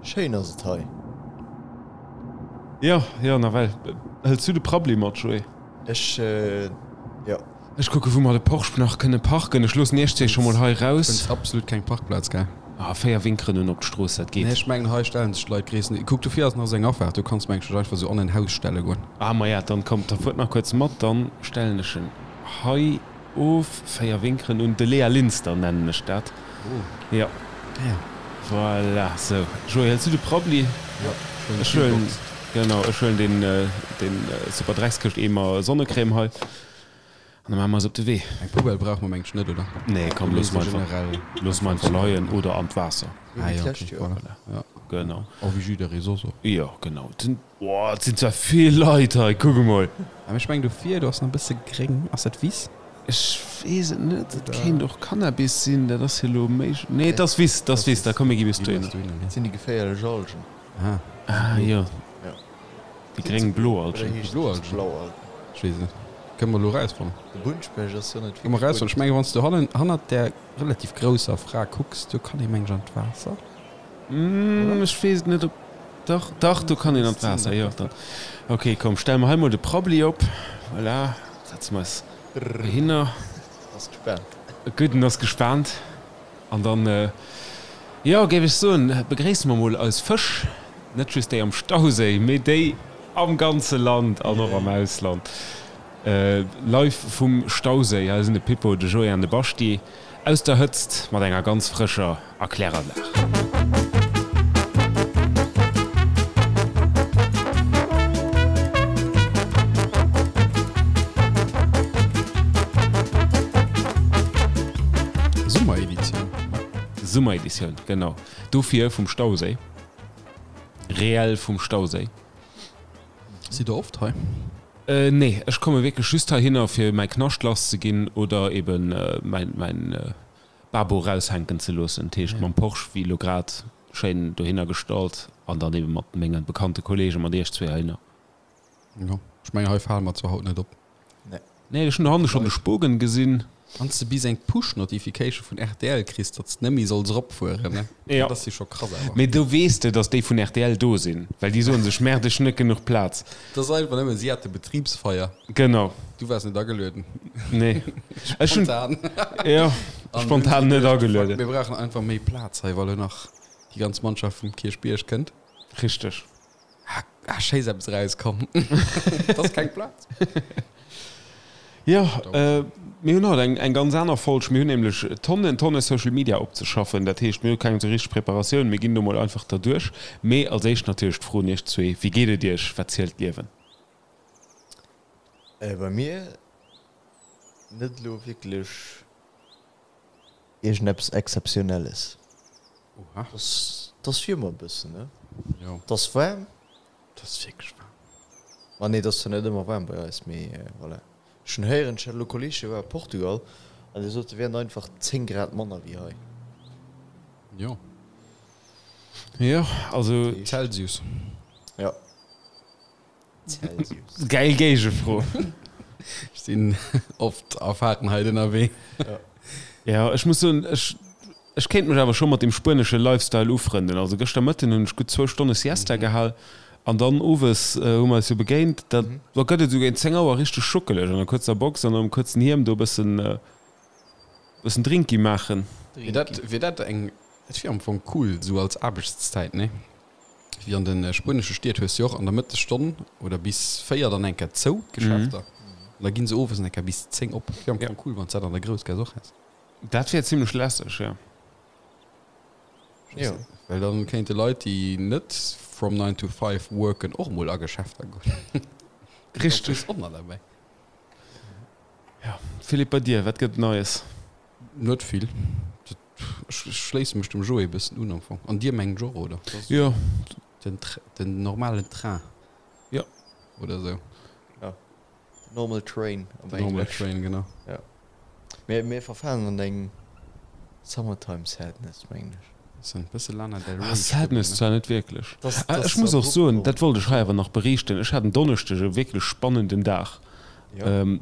Schéin ass et hei. Jo, jo, nawell. Hëls du de Prabbli mat, Joé? Ech, jo. Ech kucke wou mer de Porsche nach kënne parken. Ech loossen iech zwee scho mol hei raus. Fënns absolut keng Parkplaz, gell? Ah, 4 Winkeren un op d'Strooss, dat geet. Nee, ech mengen hei stellen sech d'Leit gréissten. Kuck, dofir ass nach esou eng Afaart, do kanns mengen ech dech einfach esou an en Haus stelle goen. Ah, maja, dann kommt, da fuert nach kuerz mat, dann stellen ech en hei of. 4 Winkeren un de Léa Linster nennen ech dat. Oh. Jo. Ja. Voilà, sou. Joé, hëls du de Prabbli? Jo, ech huelen ech huelen, genau, ech huelen deen, deen super Dreckskëscht-Eemer Sonnecrème hei an da maache mer eis op de Wee. Eng Poubelle brauche mer mengt ech net, oder? Nee, komm, loosse mer einfach, loosse mer einfach leien oder an d'Waasser. Ah jo, okay, voilà. Ja. Genau. Oh, wéi jidderee soss och. Jo, genau. Den, oh, et sinn zwar vill Leit hei, kuck emol. Mee ech mengen dofir, do ass nach e bësse gréng. Ass dat Wiss? Ech weess et net, et kéint och Cannabis sinn, dat ass jo elo méi, nee et ass Wiss, et ass Wiss, da komm mir gi bis dohinner. Dat sinn déi geféierlech Algen. Ah jo, déi gréng-blo Algen. Oder heescht et just blau Algen? Ech weess et net. Kënne mer elo erausfannen. De Bunnspecht ass jo net wierklech bunt. Erausfannen. Ech mengen, wann s du hannen, hannert där relativ grousser Fra kucks, do kann ee meng ech an d'Waasser. Ech weess et net, ob, dach, dach, do kann een an d'Waasser, jo. Dann, ok, komm, stelle mer hei mol de Prabbeli op. Voilà, setze mer eis dohinner. Ass gespaant. Gutt, en ass gespaant. An dann, jo, géif ech soen, begréisse mer mol eis Fësch, net just déi am Stauséi, mee déi am ganze Land an och am Ausland. Live vum Stauséi, hei sinn de Pippo, de Joé an de Baschti aus der Hëtzt mat enger ganz frëscher Erkläranlag. Summereditioun. Summereditioun, genau. Dofir vum Stauséi. Reell vum Stauséi. Sidd der oft hei? Nee, ech komme wierklech just heihinner fir mäi Knascht lass ze ginn oder eben mäin, mäin Babo raushänken ze loossen. Dat heescht mam Porsche, wéi elo grad, schéin dohinner gestallt an dann eben mat menge bekannte Kollegen, mat iech zwee heihinner. Jo, ech mengen hei fale mer zwar haut net op. Nee, ech hunn dohanne schonn de Spogen gesinn. Wann s de bis eng Push-Notification vun rtl kriss, datt s de net méi solls eropfueren, ne? Jo. Dat ass jo scho krass awer. Mee do weess de, datt déi vun rtl do sinn, well déi soen sech, Merde, ech hunn net genuch Plaz. Dat ass einfach nëmmen, si hate Betribsfeier. Genau. Du waars net agelueden. Nee. Ech hunn. Spontan. Jo, spontan net agelueden. Mir brauchen einfach méi Plaz hei, well elo nach déi ganz Mannschaft vum Kierchbierg kënnt. Richteg. Ah, schéi ass eppes erauskomm. Et ass keng Plaz. Jo, mir hunn haut eng eng ganz aner Folg. Mir hunn nämlech Tonnen, Tonne Social Media opzeschaffen. Dat heescht, mir hu keng esou richteg Preparatioun. Mir ginn do mol einfach derduerch. Mee als éischt natierlech d'Fro un iech zwee, Wéi geet et iech? Wat zielt d'Liewen? Bei mir net elo wierklech Iergendeppes Exzeptionelles. Oha. Et ass wéi ëmmer e bëssen, ne? Jo. Et ass waarm. Et ass wierklech waarm. Ma nee, et ass zwar net ëmmer waarm bei eis, mee voilà. Ech hunn héieren, ech hat elo Kolleeg, dee war a Portugal an dee sot, et wieren einfach 10 Grad manner wéi hei. Jo. Jo, also. Celsius. Jo. Celsius. Geil Géigefro. Ech sinn oft a Fahrenheit ënnerwee. Ja, ech muss soen, ech, ech kéint mech awer scho mat dem spuenesche Lifestyle ufrënden. Also gëschter Mëtten hunn ech gutt zwou Stonne Siesta gehal an dann owes hu mer eis jo begéint. Da gëtt et esou géint 10 Auer richteg schuckeleg an der kuerzer Box an am kuerzen Hiem do e bëssen, bëssen Drinki maachen. Wier dat, wier dat eng, dat wier am Fong cool esou als Aarbechtszäit, nee? Wéi an de spuenesche Stied hues du jo och an der Mëttesstonn oder bis 4 dann eng Kéier zou, d'Geschäfter. An da ginn se owes eng Kéier bis 10 op. Wier am Fong cool, wann s dat an der Groussgaass och häss. Dat wier zimlech lässeg, jo. Jo. Well dann kéinte Leit, déi net from nine to five worken, och mol a Geschäfter goen. Richteg. Och nach derbäi. Jo. Philippe, bei dir, wat gëtt et Neies? Net vill. Ech schléisse mech dem Joé e bëssen un am Fong. An dir mengt och, oder? Jo. Den, den normalen Train. Jo. Oder esou. Jo. The normal train op English. The normal train, genau. Jo. Mir, mir verfalen an eng Summertime Sadness, mengen ech. Bëssen, bësse Lana Del Rey. Ah, Sadness zwar net wierklech. Dass, Ah, dass ech muss och abrupt soen, komm. dat wollt ech hei awer nach beriichten, ech hat en Donneschdeg e wierklech spannenden Dag.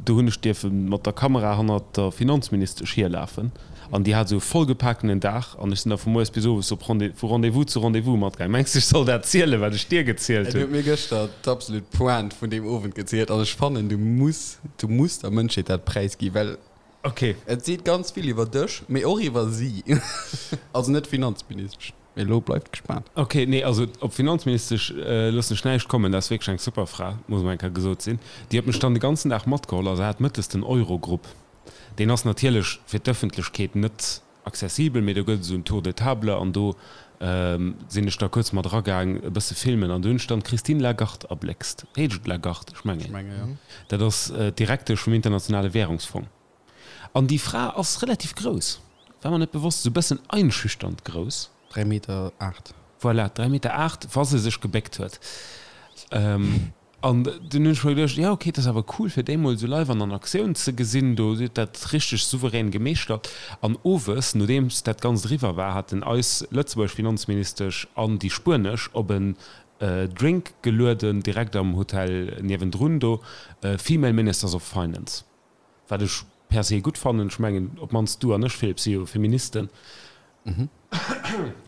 Do hunn ech dierfe mat der Kamera hannert der Finanzministesch hierlafen an déi hat esou e vollgepakenen Dag an ech sinn da vu moies bis owes op Rendez, vu Rendez-vous zu Rendez-vous matgaangen. Mengs de, ech soll dat zielen, wat ech dir gezielt Du hunn? huet mir gëschter d'absolut Pointe vun deem Owend gezielt an ech fannen, du muss, du muss der Mënschheet dat präisgi well Okay. et seet ganz vill iwwer dech, mee och iwwer si. Also net d'Finanzministesch. Mee elo bleift gespaant. Ok, nee, also op Finanzministesch loossen ech näischt kommen, dat ass wierklech eng super Fra, muss emol eng Kéier gesot sinn. Déi huet mech dann de ganzen Dag matgeholl a se hat mëttes den Eurogrupp. Deen ass natierlech fir d'Ëffentlechkeet net accessibel, mee do gëtt et esou en Tour de table an do sinn ech da kuerz mat eragaang e bësse filmen an do hunn ech dann d'Christine Lagarde erbléckst. Heescht et Lagarde? Ech mengen. Ech menge jo. Dat ass d'Direktesch vum Internationale Währungsfong. An déi Fra ass relativ grouss, war mer net bewosst, esou bëssen einschüchternd grouss. 3 Meter 8. Voilà, 3 Meter 8, wa se sech gebéckt huet. An dunn hunn ech mer geduecht, jo ok, et ass awer cool fir déi mol esou live an an Aktioun ze gesinn, do, si huet dat richteg souverän gemeeschtert. An owes, nodeems dat Ganzt eriwwer war, haten eis lëtzebuergesch Finanzministesch an déi spuenesch op en Drink gelueden, direkt am Hotel niewendrun do, Female Ministers of Finance. Wat ech per se gutt fannen. Ech mengen, op d'mannst du an ech, Philippe, si jo Feministen.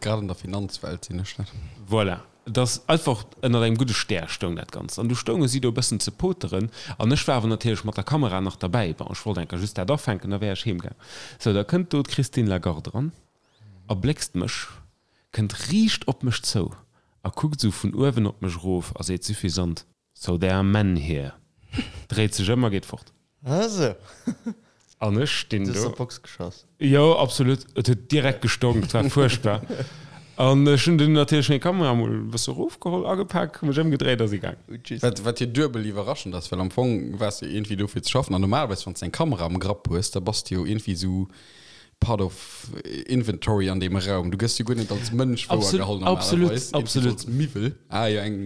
Grad an der Finanzwelt sinn ech dat. Voilà. Et ass einfach ënnert engem gudde Stär stoung dat Ganzt. An du stounge si do e bëssen ze poteren. An ech war awer natierlech mat der Kamera nach derbäi. Bon, ech wollt enker just dat afänken, da wär ech heemgaang. Sou, da kënnt do d'Christine Lagarde eran, erbléckst mech, kënnt riicht op mech zou a kuckt esou vun uewen op mech erof a seet suffisant, So there are men here. Dréit sech ëm a geet fort. Ah sou. An ech stinn Du hues do. der Box geschoss. Jo, absolut. Et huet direkt gestonk, et war fuerchtbar. An ech hunn dunn natierlech meng Kamera mol e bësse erofgeholl, agepak, mech ëmgedréit a si gaang. Wat, wat jo duebel iwwerraschend ass, well am Fong waars de iergendwéi do fir ze schaffen an normalerweis wann s de eng Kamera am Grapp hues, da bass de jo iergendwéi esou part of inventory an deem Raum. Du gëss jo guer net als Mënsch wouergeholl Absolut, normalerweis, iergendwéi absolut. sou als Miwwel. Ah jo, eng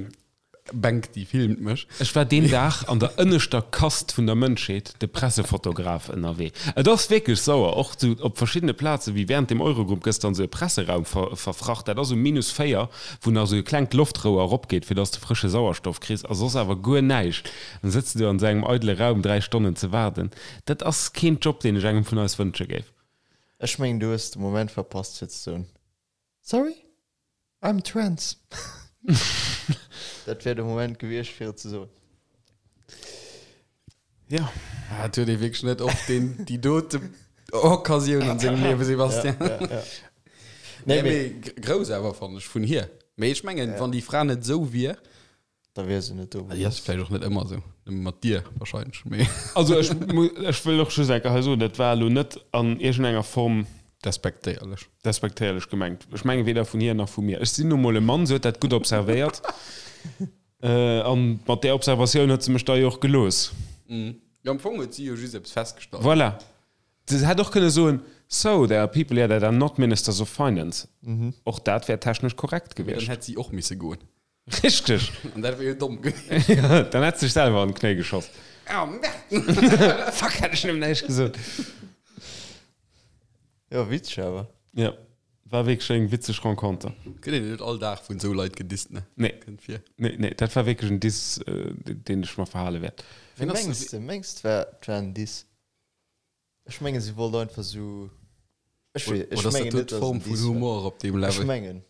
Bänk, déi filmt mech. Ech war deen Dag an der ënneschter Kast vun der Mënschheet, de Pressefotograf, ënnerwee. Et ass wierklech sauer, och sou op verschiddene Plazen, wéi während dem Eurogroup gëss dann sou e Presseraum verfracht, dat ass um minus 4, wou nach sou e klengt Loftrouer eropgeet, fir dass de frësche Sauerstoff kriss, a soss awer guer näischt. Dann sëtz de do an sou engem eidele Raum 3 Stonnen ze waarden. Dat ass keen Job, deen ech engem vun eis wënsche géif. Ech mengen, du hues de Moment verpasst fir ze soen, Sorry? I'm trans. Dat wär de Moment gewiescht fir et ze soen. Ja. Ah, et huet ee wierklech net oft deen, déi dote Occasioun an sengem Liewen, Sebastian. Ja, ja, ja. Nee, Nee, mee mee grouss awer, fannen ech, vun hir. Mee ech mengen, wann déi Fra net esou wier, Da wier se net do. Déi ass vläicht och net ëmmer esou, nëmme mat dir wahrscheinlech, mee. Also ech, ech wëll och just eng Kéier hei soen, dat war elo net an iergendenger Form. Despektéierlech. Despektéierlech gemengt. Ech menge weder vun hir nach vu mir. Ech sinn nu mol e Mann, se huet dat gutt observéiert. An mat där Observatioun huet se mech da jo och gelooss. Jo, am Fong huet si jo just eppes festgestallt. Voilà. Se hätt och kënne soen, So, there are people here that are not ministers of finance. Och dat wär technesch korrekt Mee dann gewiescht. hätt si och misse goen. Richteg! An dat wier jo domm gewiescht. Ja, dann hätt sech selwer an d'Knéi geschoss. Oh, Merde! Fuck, hätt ech nëmmen näischt gesot. Jo, witzeg awer. Ja, war wierklech eng witzeg Renconter. Gëtt een net all Dag vun esou Leit gedisst, ne? Nee. Kënnt vir. Nee, nee, dat war wierklech en Diss, deen ech mer verhale wäert. Wéi mengs de? Mengs de, et war en Diss? Ech mengen si wollt einfach sou ech wee ech Oder ass dat mengen do net dass d'Form en vun Diss war. Humor op deem Ech Level? mengen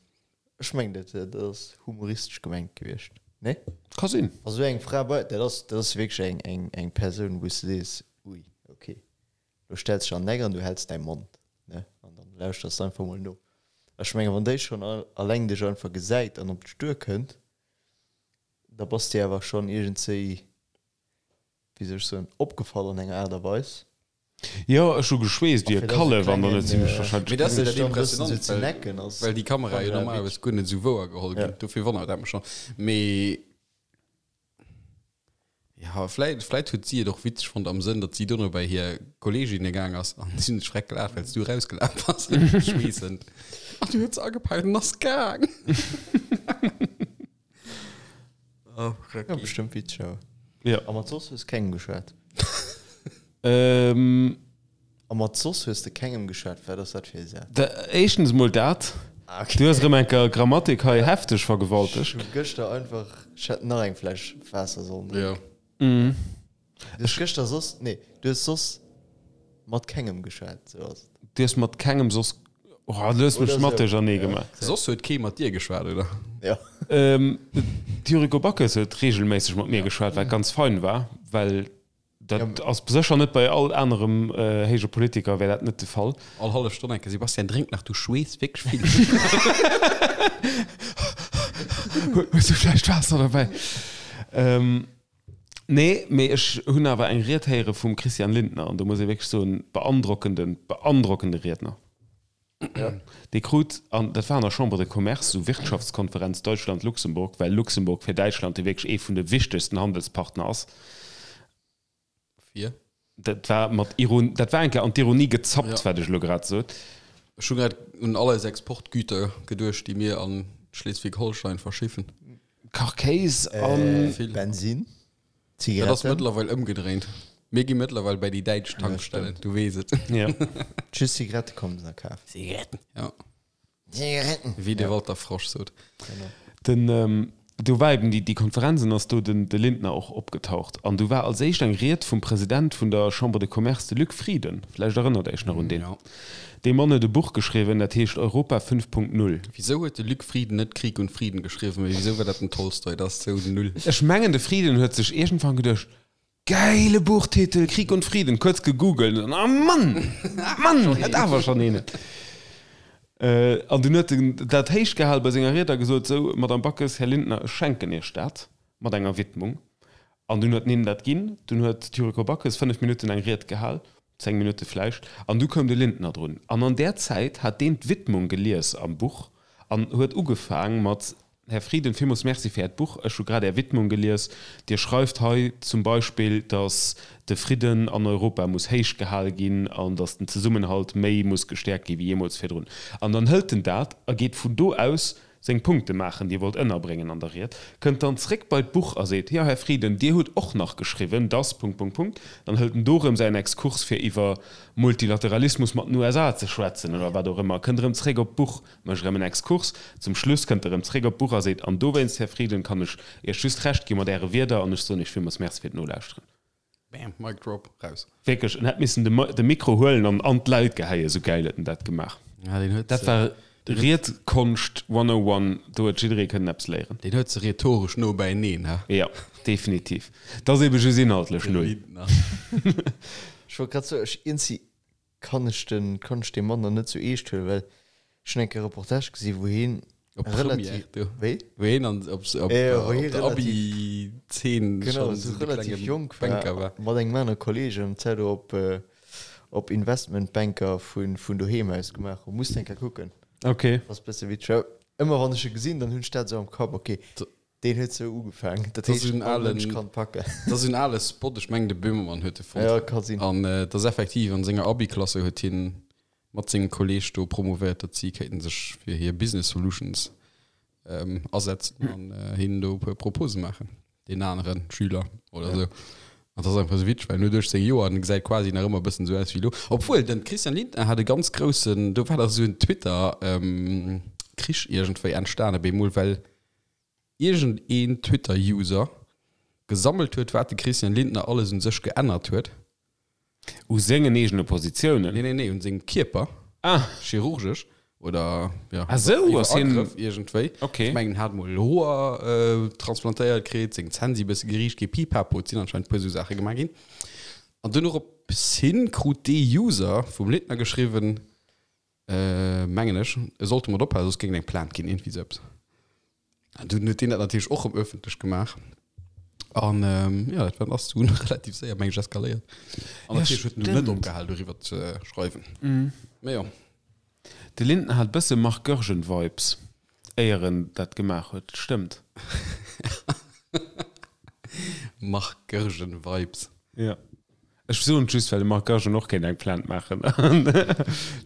ech mengen dat dat ass humoristesch gemengt gewiescht nee? Ka sinn. Wa sou eng Fra bei dat ass dat ass wierklech eng eng eng Persoun wou s de sees ui ok lo stells dech an den Eck an du häls däi Mond ne an dann lauschters de einfach mol no. Ech mengen wann déi schonn alleng dech einfach gesäit an op dech duerkënnt da bass de awer schonn iergendzéi wéi soll ech soen, opgefall an enger Aart a Weis. Jo, ech hu geschweesst wéi e Kallef an dann huet si mech wahrscheinlech Mee dat ass jo gesinn. dat Impressionant, well, well déi Kamerae jo normalerweis guer net esou wouer geholl ginn. Dofir wonnert dat mech schonn. Mee jo, vläit, vläit huet si et och witzeg fonnt am Sënn, datt si dono bei hir Kolleeginne gaang ass an si hunn sech schreck gelaacht, well s du erausgelaf bass, schweessend. An du huet se agepaakt an ass gaang. Oh, ja, bestimmt witzeg awer. Ja. A mat soss hues kengem geschwat? Ähm. A mat soss hues de kengem geschwat? Wat ass dat fir e Saz? Da, éischtens mol dat. Ah, okay. Du hues erëm eng Kéier Grammatik hei hefteg vergewaltegt. Ech hu gëschter einfach, ech hätt nach eng Fläsch Waasser sollen drénken. Ja. Mhm. Du hues gëschter soss, nee, du hues soss mat kengem geschwat, sou ass et. Du hues mat kengem soss, oh, du hues mech mat duerchernee gemaach. Soss huet kee mat dir geschwat, oder? Ja. D'Yuriko Backes huet reegelméisseg mat mir geschwat, wat ganz fein war, well dat ass sécher net bei all anerem héije Politiker wär dat net de Fall. All hallef Stonn eng Kéier, Sebastian, drénk nach, du schweess wierklech vill. Hues du vläicht Waasser derbäi? Nee, mee ech hunn awer eng Ried héiere vum Christian Lindner an do muss ee wierklech soen, beandrockenden, beandrockende Riedner. Dee krut, an dat war an der Chambre de Commerce, esou Wirtschaftskonferenz Deutschland-Luxemburg, well Luxemburg fir Däitschland jo wierklech ee vun de wichtegsten Handelspartner ass. Fir? Dat war mat Iron, dat war eng Kéier an d'Ironie gezappt, wat ech elo grad sot. Ech hu grad un all eis Exportgüter geduecht, déi mir an Schleswig-Holstein verschiffen. Kachkéis an. Bensin, Dat ass Zigaretten. mëttlerweil ëmgedréint. Mir gi mëttlerweil bäi déi däitsch Tankstellen, du weess et. Ja. Just Zigarette kommen se nach kafen. Zigaretten. Ja. Zigaretten. Wéi de Walter Frosch sot. Den, do war eben déi, déi Konferenz an ass do den, de Lindner och opgetaucht. An du war als éischt eng Ried vum President vun der Chambre de Commerce, de Luc Frieden. Vläicht erënnert Iech nach un deen. Ja. Dee Mann huet e Buch geschriwwen, dat heescht Europa 5.0. Wisou huet de Luc Frieden net Krieg und Frieden geschriwwen, mee wisou war dat den Tolstoi? Dat ass sou null. Ech mengen, de Frieden huet sech iergendwann geduecht, Gäile Buchtitel, Krieg und Frieden, kuerz gegoogelt an ah Mann, Mann, hätt awer schonn een. An dunn huet en dat héich gehal bei senger Ried a gesot, Sou, Madame Backes, Här Lindner, ech schenken Iech dat mat enger Widmung. An dunn huet en hinnen dat ginn. Dunn huet d'Yuriko Backes 5 Minutten eng Ried gehal, 10 Minutte vläicht, an du koum de Lindner drun. An an där Zäit hat deen d'Widmung gelies am Buch an huet ugefaang mat, Här Frieden, villmools Merci fir Äert Buch. Ech hu grad Är Widmung gelies. Dir schreift hei zum Beispill, datt de Fridden an Europa muss héich gehal ginn an datt den Zesummenhalt méi muss gestäerkt gi wéi jeemools virdrun. An dann hëlt en dat a geet vun do aus seng Punkte maachen, déi e wollt ënnerbréngen an der Ried, kënnt dann zréck bei d'Buch a seet, Jo, Här Frieden, Dir hutt och nach geschriwwen, dass Punkt, Punkt, Punkt. Dann hëlt en do erëm säin Exkurs, fir iwwer Multilateralismus mat den USA ze schwätzen oder wat och ëmmer, kënnt erëm zréck op d'Buch, mécht erëm en Exkurs. Zum Schluss kënnt e erëm zréck op d'Buch a seet, An dowéinst, Här Frieden, kann ech Iech just Recht gi mat Äre Wierder an ech soen Iech villmools Merci fir d'Nolauschteren. Bam, Mic drop, raus. Wierklech, en hätt missen de Mikro huelen an an d'Leit geheien, esou gäil huet en dat gemaach. Ja, deen huet Dat war Riedkonscht 101, do huet jidderee kënnen eppes léieren. Deen huet se rhetoresch no bäineen, he? Jo, definitiv. Dat ass ebe just inhaltlech De null. Lindner. Ech wollt grad soen, ech iergendwéi kann ech den, kann ech dee Mann dann net sou eescht huelen, well ech hunn eng Kéier e Reportage gesi wou hien Op relativ, Première, du. wéi? Wou hien an, op, op, Ja, wou op hie der relativ, Abi-Zeen genau, schonn sou esou de relativ klenge jonk Banker war, war. mat engem anere Kolleeg an d'Zäit do op, op Investmentbanker vun, vun doheem aus gemaach hunn. Muss de eng Kéier kucken. Ok. Ass bësse witzeg. Ëmmer wann ech e gesinn, dann hunn ech dat esou am Kapp, ok, Deen huet sou ugefaangen. Dat Dat ass heescht, en all alen, Mënsch kann packen. dat ass en ale Spot, ech mengen de Böhmermann huet e fonnt. Ja, ka sinn. An et ass effektiv, an senger Abi-Klasse huet hien mat sengem Kolleeg do promovéiert, datt si kéinten sech fir hir Business Solutions asetzen an hinnen do e puer Propose maachen, deen anere Schüler oder sou. An dat ass einfach sou witzeg, well en huet 18 Joer an e gesäit quasi nach ëmmer e bëssen sou aus wéi elo. Obwuel, den Christian Lindner hat e ganz groussen, do war dach sou en Twitter Krich iergendwéi entstanen bemol, well iergend een Twitter User gesammelt huet wat de Christian Lindner alles un sech geännert huet. U sengen eegene Positiounen? Nee nee nee, un sengem Kierper. Ah. Chirurgesch oder ja, Ah sou, iwwer ass hien. Agrëff iergendwéi. Ok. Ech mengen en hat mol Hoer transplantéiert kritt, seng Zänn si bësse geriicht gi, pipapo, et sinn anscheinend puer sou Saache gemaach ginn. An dunn dorops hin krut dee User vum Lindner geschriwwen, Mengen ech, e sollt domat ophalen, soss géing et eng Plainte ginn, iergendwéi sou eppes. An dunn huet deen dat natierlech och erëm ëffentlech gemaach. An jo, dat war ass dunn relativ séier, meng ech, eskaléiert. An Ja, natierlech huet en dunn net stimmt. opgehal, doriwwer ze schreiwen. Mee jo. De Lindner hat bësse Marc Goergen-Vibes, éier en dat gemaach huet. Stëmmt. Marc Goergen-Vibes. Ja. Ech soen et just, well de Marc Goergen och kéint eng Plainte maachen.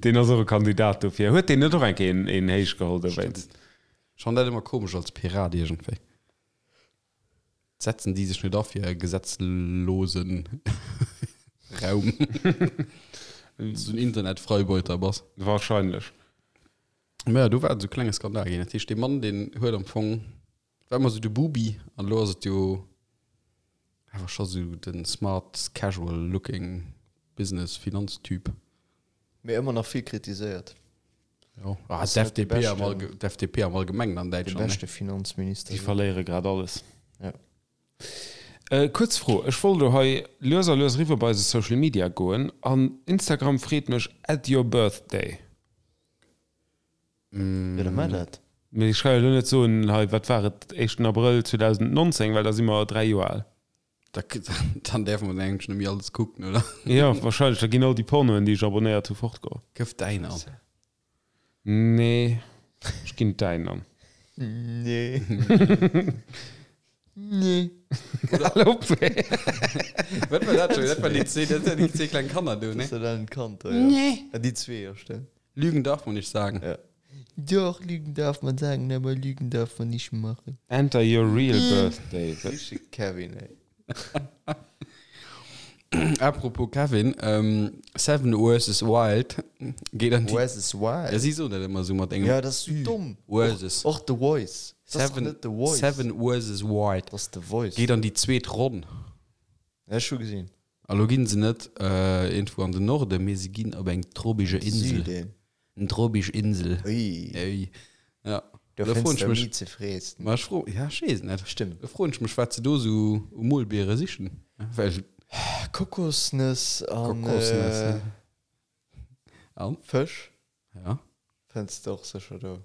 Deen ass och e Kandidat dofir. Huet deen net och eng Kéier een, een héich geholl dowéinst? Ech fannen dat ëmmer komesch als Pirat iergendwéi. Setzen déi sech net a fir e gesetzlose Raum? Wann s du en Internetfreibeuter bass. Wahrscheinlech. Mä jo, do war et esou e klenge Skandal ginn. Dat heescht, dee Mann, deen huet am Fong, war ëmmer esou de Bubi an elo ass et jo. Awer scho sou den smart casual looking Business Finanztyp. Mee ëmmer nach vill kritiséiert. Jo, ah, d'FDP am Allge d'FDP am Allgemengen an Däitschland, ne? De beschte Finanzminister. Déi verléiere grad alles. Ja. Kuerz Fro, ech wollt elo hei lues a lues eriwwer bei eise Social Media goen an Instagram freet mech add your birthday. Jo, da maach dat. Mee ech ka jo elo net soen, hei wat war et, éischten Abrëll 2019, well da si mer 3 Joer al. Da, dann däerfe mer eigentlech net méi alles kucken, oder? Jo, wahrscheinlech, da ginn all déi Pornoen, déi ech abonnéiert hu, fortgoen. Gëff däin an. Nee, ech ginn däin an. Nee. Nee. Hal op, ey. Wat war dat schon? Dat waren déi zwee, dat waren déi zwee kleng Kanner do, ne? Dat waren d'Kand do, ja. Nee. Ja, déi zwee, jo, stimmt. Lügen darf man nicht sagen. Ja. Doch, Lügen darf man sagen, aber Lügen darf man nicht machen. Enter your real birthday. Richtige Kevin, ey. Apropos Kevin, ähm, Seven vs. Wild geet an déi. Versus Wild? Ja, si soen dat ëmmer esou mat engem. Ja, dat ass sou domm. Versus. Och The Voice. Dat ass doch Seven, net The Voice. Seven vs. Wild. Dat ass The Voice. Geet an déi zweet Ronn. Ja, ech hu gesinn. A lo ginn se net iergendwou an den Norden, mee se ginn op eng trobige Insel. Süden. Eng tropisch Insel. Ui. Ui. Ja. Do Da fënns froen de ech mech. méi ze fressen. Ma ech fro, ja, ech weess et net. Stimmt. Da froen ech mech, wat se do sou u Molbiere sichen. Well. Kokosnëss an. Kokosnëss, ja. An? Fësch. Ja. Fënns de och sécher do.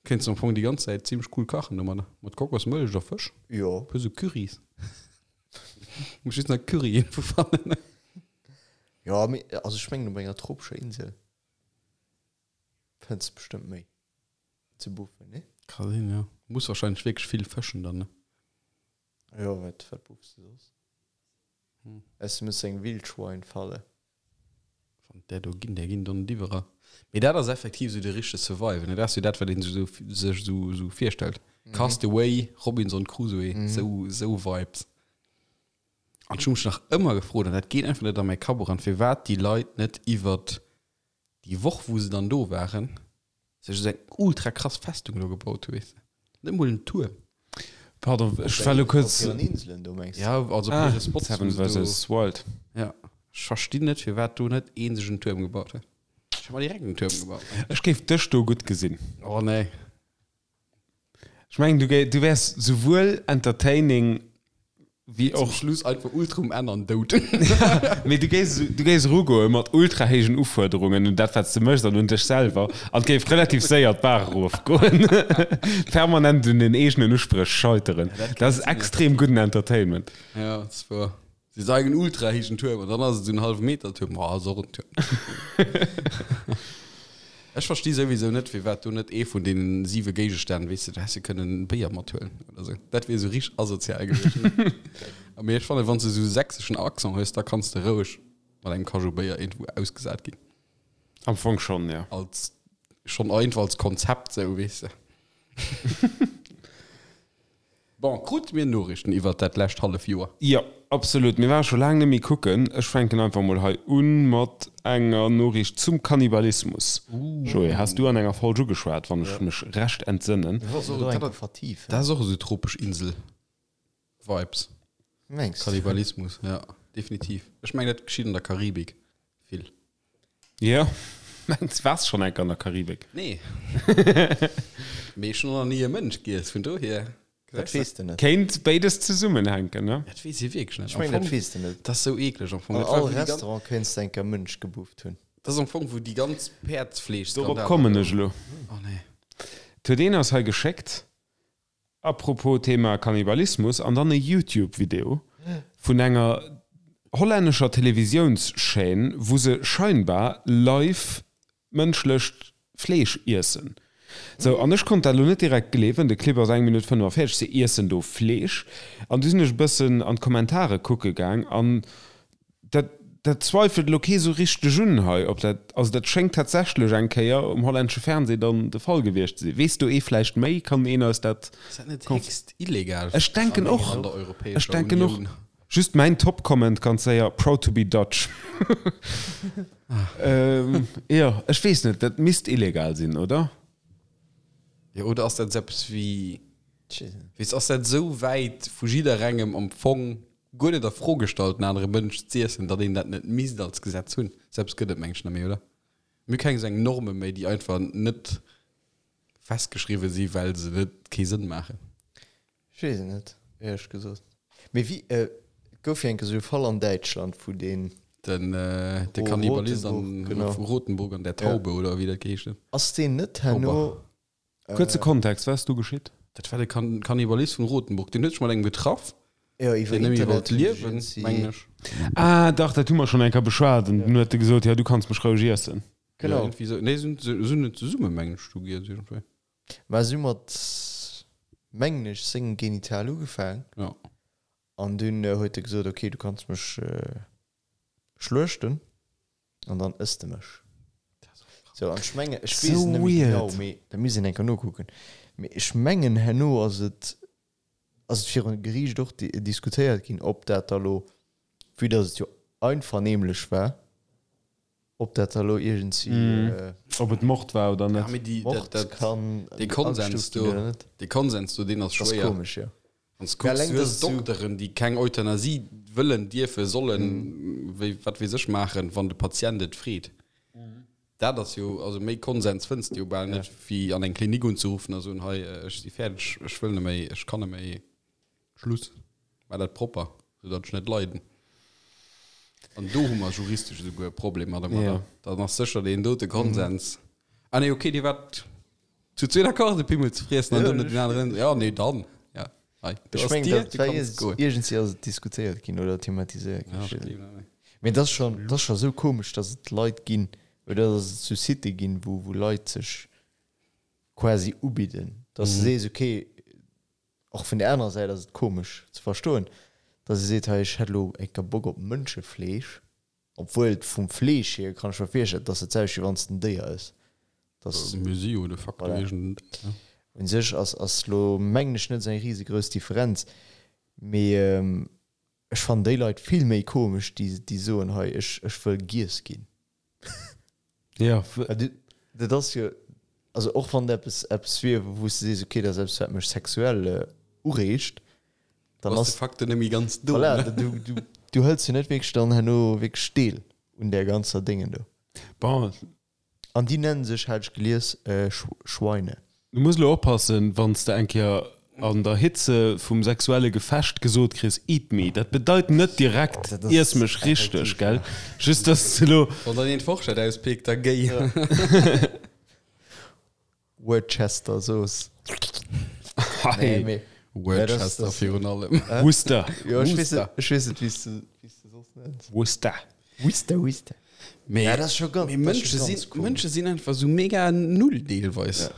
Kéints de am Fong déi ganz Zäit zimmlech cool kachen domadder. Mat Kokosmëllech a Fësch. Jo. Puer sou Currys. Muss just nach Curry iergendwou fannen. Jo, mee also ech mengen op enger tropescher Insel. Fënns bestëmmt méi ze buffen, nee? Ka sinn, jo. Muss wahrscheinlech wierklech vill fëschen dann, ne? Jo, wat, wat buffs de soss? Hm. Aus du muss eng Wildschwein-Falle. Wann där do ginn, där ginn dann net iwwerall. Mee dat ass effektiv esou de richtege Survival, ne? Dat ass jo dat, wat een sech esou, sech esou, esou virstellt. Cast Away, Robinson Crusoe, esou, esou Vibes. An ech hu mech nach ëmmer gefrot, an dat geet einfach net a mäi Kapp eran, firwat déi Leit net iwwert déi Woch, wou se dann do waren, sech esou eng ultra krass Festung do gebaut hu, weess de. Net emol en Tuerm. Pardon, ech war elo kuerz. Op hiren Inselen do, mengs de? Ja, also op Ah, hire Spots, Seven wou se do. versus Wild. Ja, ech verstinn net, firwat do net ee sech en Tuerm gebaut huet. Ech hätt mer direkt en Tuerm gebaut. Ech géif dech do gutt gesinn. Oh nee. Ech mengen, du, du wäers souwuel entertaining wéi Zum och. Schluss einfach ultra um Enn an dout. Mee du géifs, du géifs erugoe mat ultra héijen Ufuerderungen un dat, wat s de méchs an un dech selwer an et géif relativ séier d'Baach erofgoen. Permanent un den eegenen Uspréch scheiteren. Ja, dat Dat ass kann sinn, ja. extrem gudden Entertainment. Ja, dat ass wuer. Si sagen ultra héijen Tuerm an dann ass et esou en hallwe Meter Tuerm. Ma ass och en Tuerm. Ech versti souwisou net, firwat do net ee vun deenen siwe Géigestänn, weess de, do häss de kënnen Béier mathuelen oder sou. Dat wier esou richteg asozial gewiescht. Mee ech fannen, wann s de esou e sächseschen Accent hues, da kanns de roueg mat engem Kajou Béier iergendwou ausgesat ginn. Am Fong schonn, jo. Als, schonn einfach als Konzept sou, weess de. Bon, krute mir Noriichten iwwert dat lescht hallef Joer? Jo, absolut. Mir ware scho laang net méi kucken. Ech fänken einfach mol hei un mat enger Noriicht zum Kannibalismus. Joé, has du an enger Folg ugeschwat, wann ech mech recht entsënnen. Mir wollten do eng Kéier vertiefen. Dat ass och esou tropesch Insel-Vibes. Mengs du? Kannibalismus, ja, definitiv. Ech mengen, dat geschitt an der Karibik vill. Jo, mengs waars schonn enk an der Karibik? Nee. Mee ech hunn och nach ni e Mënsch giess, vun dohier. Dat weess de net. Kéint béides zesummenhänken, ne? Dat weess ee wierklech net. Ech mengen, dat weess de net. Dat ass sou eekleg am Fong. An Dat war all wou déi ganz. Restaurant kéints de enk e Mënsch gebufft hunn. Dat ass am Fong wou déi ganz Dorop Päerdsfleeschskandaler. kommen ech elo. Oh nee. Et huet een eis hei geschéckt, A propos Thema Kannibalismus, an dann e Youtube-Video vun enger hollännescher Televisiounschaîne, wou se scheinbar live mënschlecht Fleesch iessen. Sou, an ech konnt dat elo net direkt gleewen, de Clip ass eng Minutt 45, se iessen do Fleesch. An du sinn ech e bëssen an d'Kommentare kucke gaang an Dat, dat zweifelt elo kee sou richteg un hei, ob dat, also dat schéngt tatsächlech eng Kéier um hollännesche Fernseh dann de Fall gewiescht ze sinn. Weess do ee vläicht méi? Kann een eis dat Ass dat net konf. héchst illegal Ech denken an och, an der ech Europäescher denken och. Unioun? Just mäin Top-Comment ganz séier, Proud to be Dutch. Jo, ech weess net, dat misst illegal sinn, oder? Jo, oder ass dat esou eppes wéi, weess, ass dat esou wäit vu jidderengem am Fong? guer net a Fro gestallt, en anere Mënsch z'iessen, datt een dat net misst als Gesetz hunn. Selbst gëtt et mengen ech net méi, oder? Mir hu keng esou eng Norme méi, déi einfach net festgeschriwwe si well se net kee Sënn maachen. Ech weess et net, éierlech gesot. Mee wéi, et gouf jo eng Kéier esou e Fall an Däitschland, wou deen. Den, de Kannibalist an, genau. vu Rotenburg an der Taube, oder wéi dat geheescht huet. Ass deen net herno. Kuerze Kontext, wat ass do geschitt? Dat war de Kannibalist vun Rotenburg, deen huet sech mat engem getraff, Jo, iwwer deen net méi Internet wollt hunn sech liewen, iergendwéi. mengen ech. Ah dach, dat hu mer schonn eng Kéier beschwat an dunn huet e gesot, jo du kanns mech roueg iessen. Ja, Genau. iergendwéi esou. Nee, se hunn net zesumme, mengen ech, do giess iergendwéi. Mä si hu mat, mengen ech, sengem Genital ugefaang. Ja. An dunn huet e gesot, ok, du kanns mech schluechten an dann ëss de mech. Sou, an ech mengen, ech weess et net méi genau, mee dat misst een eng Kéier nokucken, mee ech mengen herno ass et, ass et virun Geriicht och diskutéiert ginn, ob dat da lo, vue dass et jo einvernehmlech war, Ob dat da lo iergendwéi. Ob et Mord war oder net. Ja, mee déi, Mord dat, dat, kann dee Konsens agestuuft ginn do, oder net. dee Konsens do, deen ass Ass schwéier. komesch, jo. Wann s Mä kucks, alleng, du dass hues et sou. Dokteren, déi keng Euthanasie wëllen, dierfen, sollen, wéi, wat weess ech, maachen, wann de Patient et freet. Dat ass jo, also méi Konsens fënns de jo bal net, wéi an eng Klinik unzeruffen a soen, hei, ech si fäerdeg, ech wëll net méi, ech kann net méi. Schluss. War dat propper, sou datt ech net leiden. An do hu mer juristesch esouguer e Problem mat ëmmer. Ja. Dann ass sécher deen dote Konsens. Ah nee, okay, Dir waart zu zwee d'accord, de Pimmel ze friessen an dann net den aneren. Ja, nee, dann. Ja, hei, do Ech ass mengen, d'Dier, dat du war kanns goen. iergendwéi ass et diskutéiert ginn oder thematiséiert ginn. Ja, Ech ech weess et gleewen dat net. Mee dat ass schon, dat ass scho sou komesch, datt et Leit ginn oder datt et sou Sitë ginn, wou, wou Leit sech quasi ubidden, datt s de sees, okay, Och vun der anerer Säit ass et komesch ze verstoen, dass ee seet, hei ech hätt elo eng Kéier Bock op Mënschefleesch, obwuel et vum Fleesch hier kann ech mer virstellen, dass dat selwecht wéi wann s de en Déier ëss. Dass, Mir si jo de facto voilà. iergend en Déier. Un sech ass ass elo mengen ech net esou eng risegrouss Differenz, mee ech fannen déi Leit vill méi komesch, déi déi soen, hei ech ech wëll giess ginn. Ja. Dat ass jo, also och wann et eppes, eppes wier, wou s de sees, okay, dat ass eppes, wat mech sexuell ureegt, dann ass ass de facto net méi ganz do. Voilà, du, du, du hëls jo net wierklech dann herno wierklech Deel un där ganzer Déngen do. Bon. An déi nennen sech, hat ech gelies, Schweine. Du muss elo oppassen, wann s de eng Kéier an der Hitze vum sexuelle Gefecht gesot kriss, Eat me, dat bedeit net direkt, iess mech richteg, gell? Just dass s de elo. Wann dann een d'Forschett auspickt, da géi. Worcester Zooss. Hei. Worcester virun allem. Worcester. Jo, ech weess net, ech weess net, wéi s de, wéi s de soss nenns. Worcester. Worcester, Worcester. Mee, Ja, dat ass scho ganz, mee dat ass scho Mënsche ganz sinn, komesch. Mënsche sinn einfach sou mega null deelweis. Ja.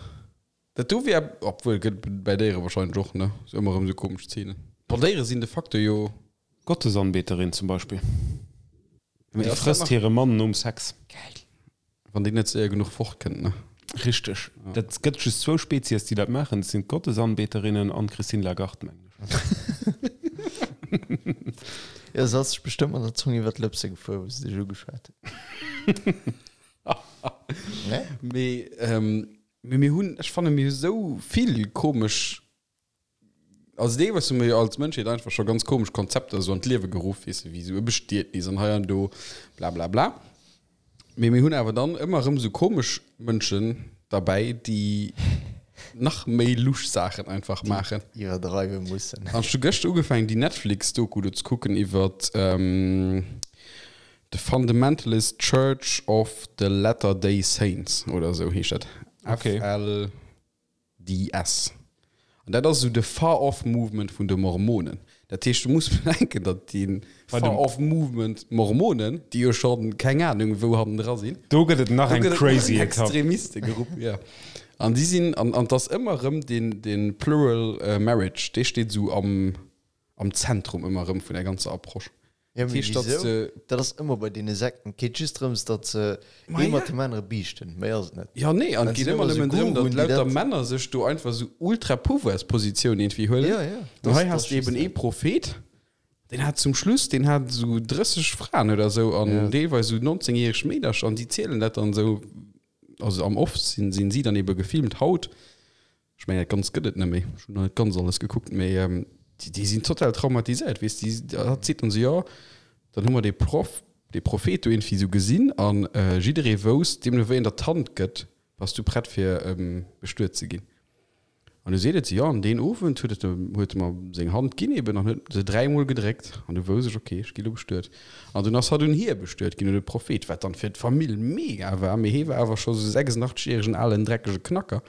Dat do wär, obwuel gëtt bei Déiere wahrscheinlech och, ne? Sou ëmmer erëm sou komesch Zeenen. Bon, Déiere sinn de facto jo. Gottesanbeterin zum Beispill. Mee Déi ass dat frësst nach- hire Mann nom Sex. Geil. Wann déi net séier genuch fortkënnt, ne? Richteg. Dat gëtt just zwou Spezies, déi dat maachen. Dat sinn d'Gottesanbeterinnen an d'Christine Lagarde, mengen ech. Jo, se ass sech bestëmmt mat der Zong iwwer d'Lëpse gefuer, wou se dech ugeschwat huet. Ne? Mee, mee mir hunn, ech fanne mir hu sou vill komesch Also deelweis hu mir jo als Mënschheet einfach scho ganz komesch Konzepter esou an d'Liewe geruff, weess de, wéi esou e Bestietnis an hei an do, bla bla bla. Mee mir hunn awer dann ëmmer erëm esou komesch Mënschen derbäi, déi nach méi lusch Saachen einfach maachen. Iwwerdreiwe mussen. An ech hu gëschter ugefaangen, déi Netflix-Doku do ze kucken iwwert The Fundamentalist Church of the Latter-day Saints oder esou heescht dat. Okay. FL. DS. An dat ass esou de Far-Off Movement vun de Mormonen. Dat heescht, du muss bedenken, datt dee Far-Off Movement Mormonen, déi jo schonn keng Anung wou hannendra sinn, Do gëtt et nach do eng gëtt et nach crazy eng Etapp. Extremiste-Grupp, jo. An déi sinn, an an 't ass ëmmer erëm deen, dee Plural Marriage, dee steet esou am, am Zentrum ëmmer erëm vun der ganzer Approche. Ja, mee heescht, datt wieso? de. Dat ass ëmmer bei deene Sekten. Et geet just drëms, datt se Ma ee mat ja. deem anere biichten. Méi ass et net. Ja, nee, an Dat et geet sinn ëmmer ëmmer sou nëmmen drëm, datt Guruen, déi lauter dat. Männer sech do einfach sou ultra Pouvoirspositioun irgendwie huelen. Ja, ja. An Dat hei dat has ass de just eben ee dat. Prophet, deen hat zum Schluss, deen hat sou 30 Fraen oder sou an Ja. deelweis sou 19 järeg Meedercher an déi zielen dat dann sou, also am Off sinn, sinn si dann ebe gefilmt haut. Ech mengen, dat Ganzt gëtt et net méi. Ech hunn nach net ganz alles gekuckt, mee. Déi sinn total traumatiséiert, weess de. Hatt seet dann esou, jo, dann hu mer dee Proff, dee Prophet do iergendwéi esou gesinn an jidderee wousst, deemno wéi en der d'Hand gëtt, bass du prett fir bestuet ze ginn. An du seet et se, jo, an deen Owend huet et, huet e mer seng Hand ginn eben an huet se dräimol gedréckt an du wousst ech, okay, ech gi lo bestuet. An dunn ass hatt un hie bestuet ginn, un de Prophet, wat dann fir d'Famill mega war, mee hie war awer scho sou 86 järegen alen dreckege Knacker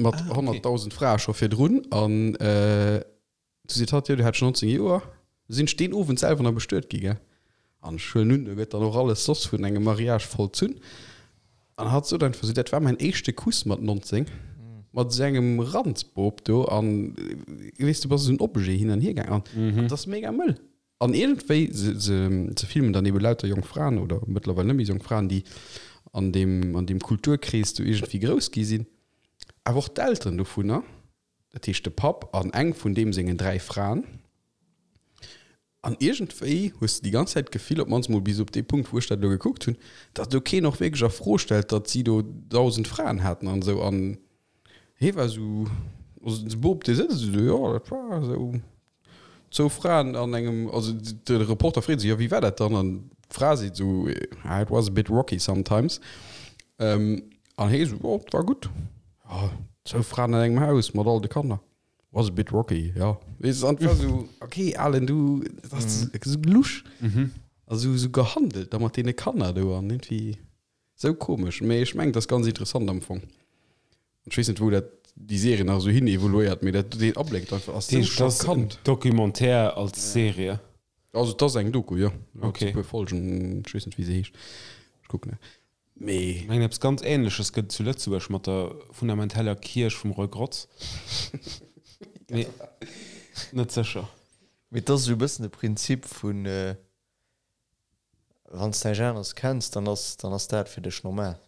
mat 100.000 Frae scho virdrun an Du seet hatt, jo, du hätt scho 19 Joer. Du sinn ech deen Owend selwer nach bestuet gi, gell? An ech huelen un, do gëtt dann och alles soss vun engem Mariage vollzunn. An hatt sot einfach esou, dat war mäin éischte Kuss mat 19, mat esou engem Ranzboob do. An weess, du bass esou en Objet hin an hier gaangen. An dat ass mega mëll. An iergendwéi, se, se, se filmen dann ebe lauter jonk Fraen oder mëttlerweil net méi jonk Fraen, déi an deem, an deem Kulturkrees do iergendwéi grouss gi sinn. Awer och d'Elteren dovunner. Dat heescht de Papp an eng vun deem sengen 3 Fraen. An iergendwéi hues de déi ganz Zäit d'Gefill, op d'mannst mol bis op dee Punkt, wou ech dat elo gekuckt hunn, datt do keen och wierklech a Fro stellt, datt si do 1.000 Fraen haten an esou. An hie war esou, also de Bop, dee sëtzt esou do, jo, dat war esou zwou Fraen an engem, also de Reporter freet esou, jo, wéi war dat dann? An d'Fra seet esou, ah, it was a bit rocky sometimes. An hie esou, jo, et war gutt. Jo, zwou Fraen an engem Haus mat all de Kanner. Was a bit rocky, jo. Weess de, an et war esou, okay, Alen, du, dat ass esou lusch a sou, sou gehandelt da mat deene Kanner do an iergendwéi sou komesch. Mee ech mengen, et ass ganz interessant am Fong. An ech weess net, wou dat déi Serie nach esou hin evoluéiert, mee dat, deen Abléck do einfach ass sou schockant. Documentaire als Serie? Also et ass eng Doku, jo. Okay. E puer Folgen, ech weess net, wéi se heescht. Ech kucken. Mee. Ech mengen eppes ganz Ähnleches gëtt et zu Lëtzebuerg mat der fundamenteller Kierch vum Roy Grotz. Mee net sécher. Mee et ass esou e bëssen de Prinzip vun, wann s de näischt aneres kenns, dann ass, dann ass dat fir dech normal.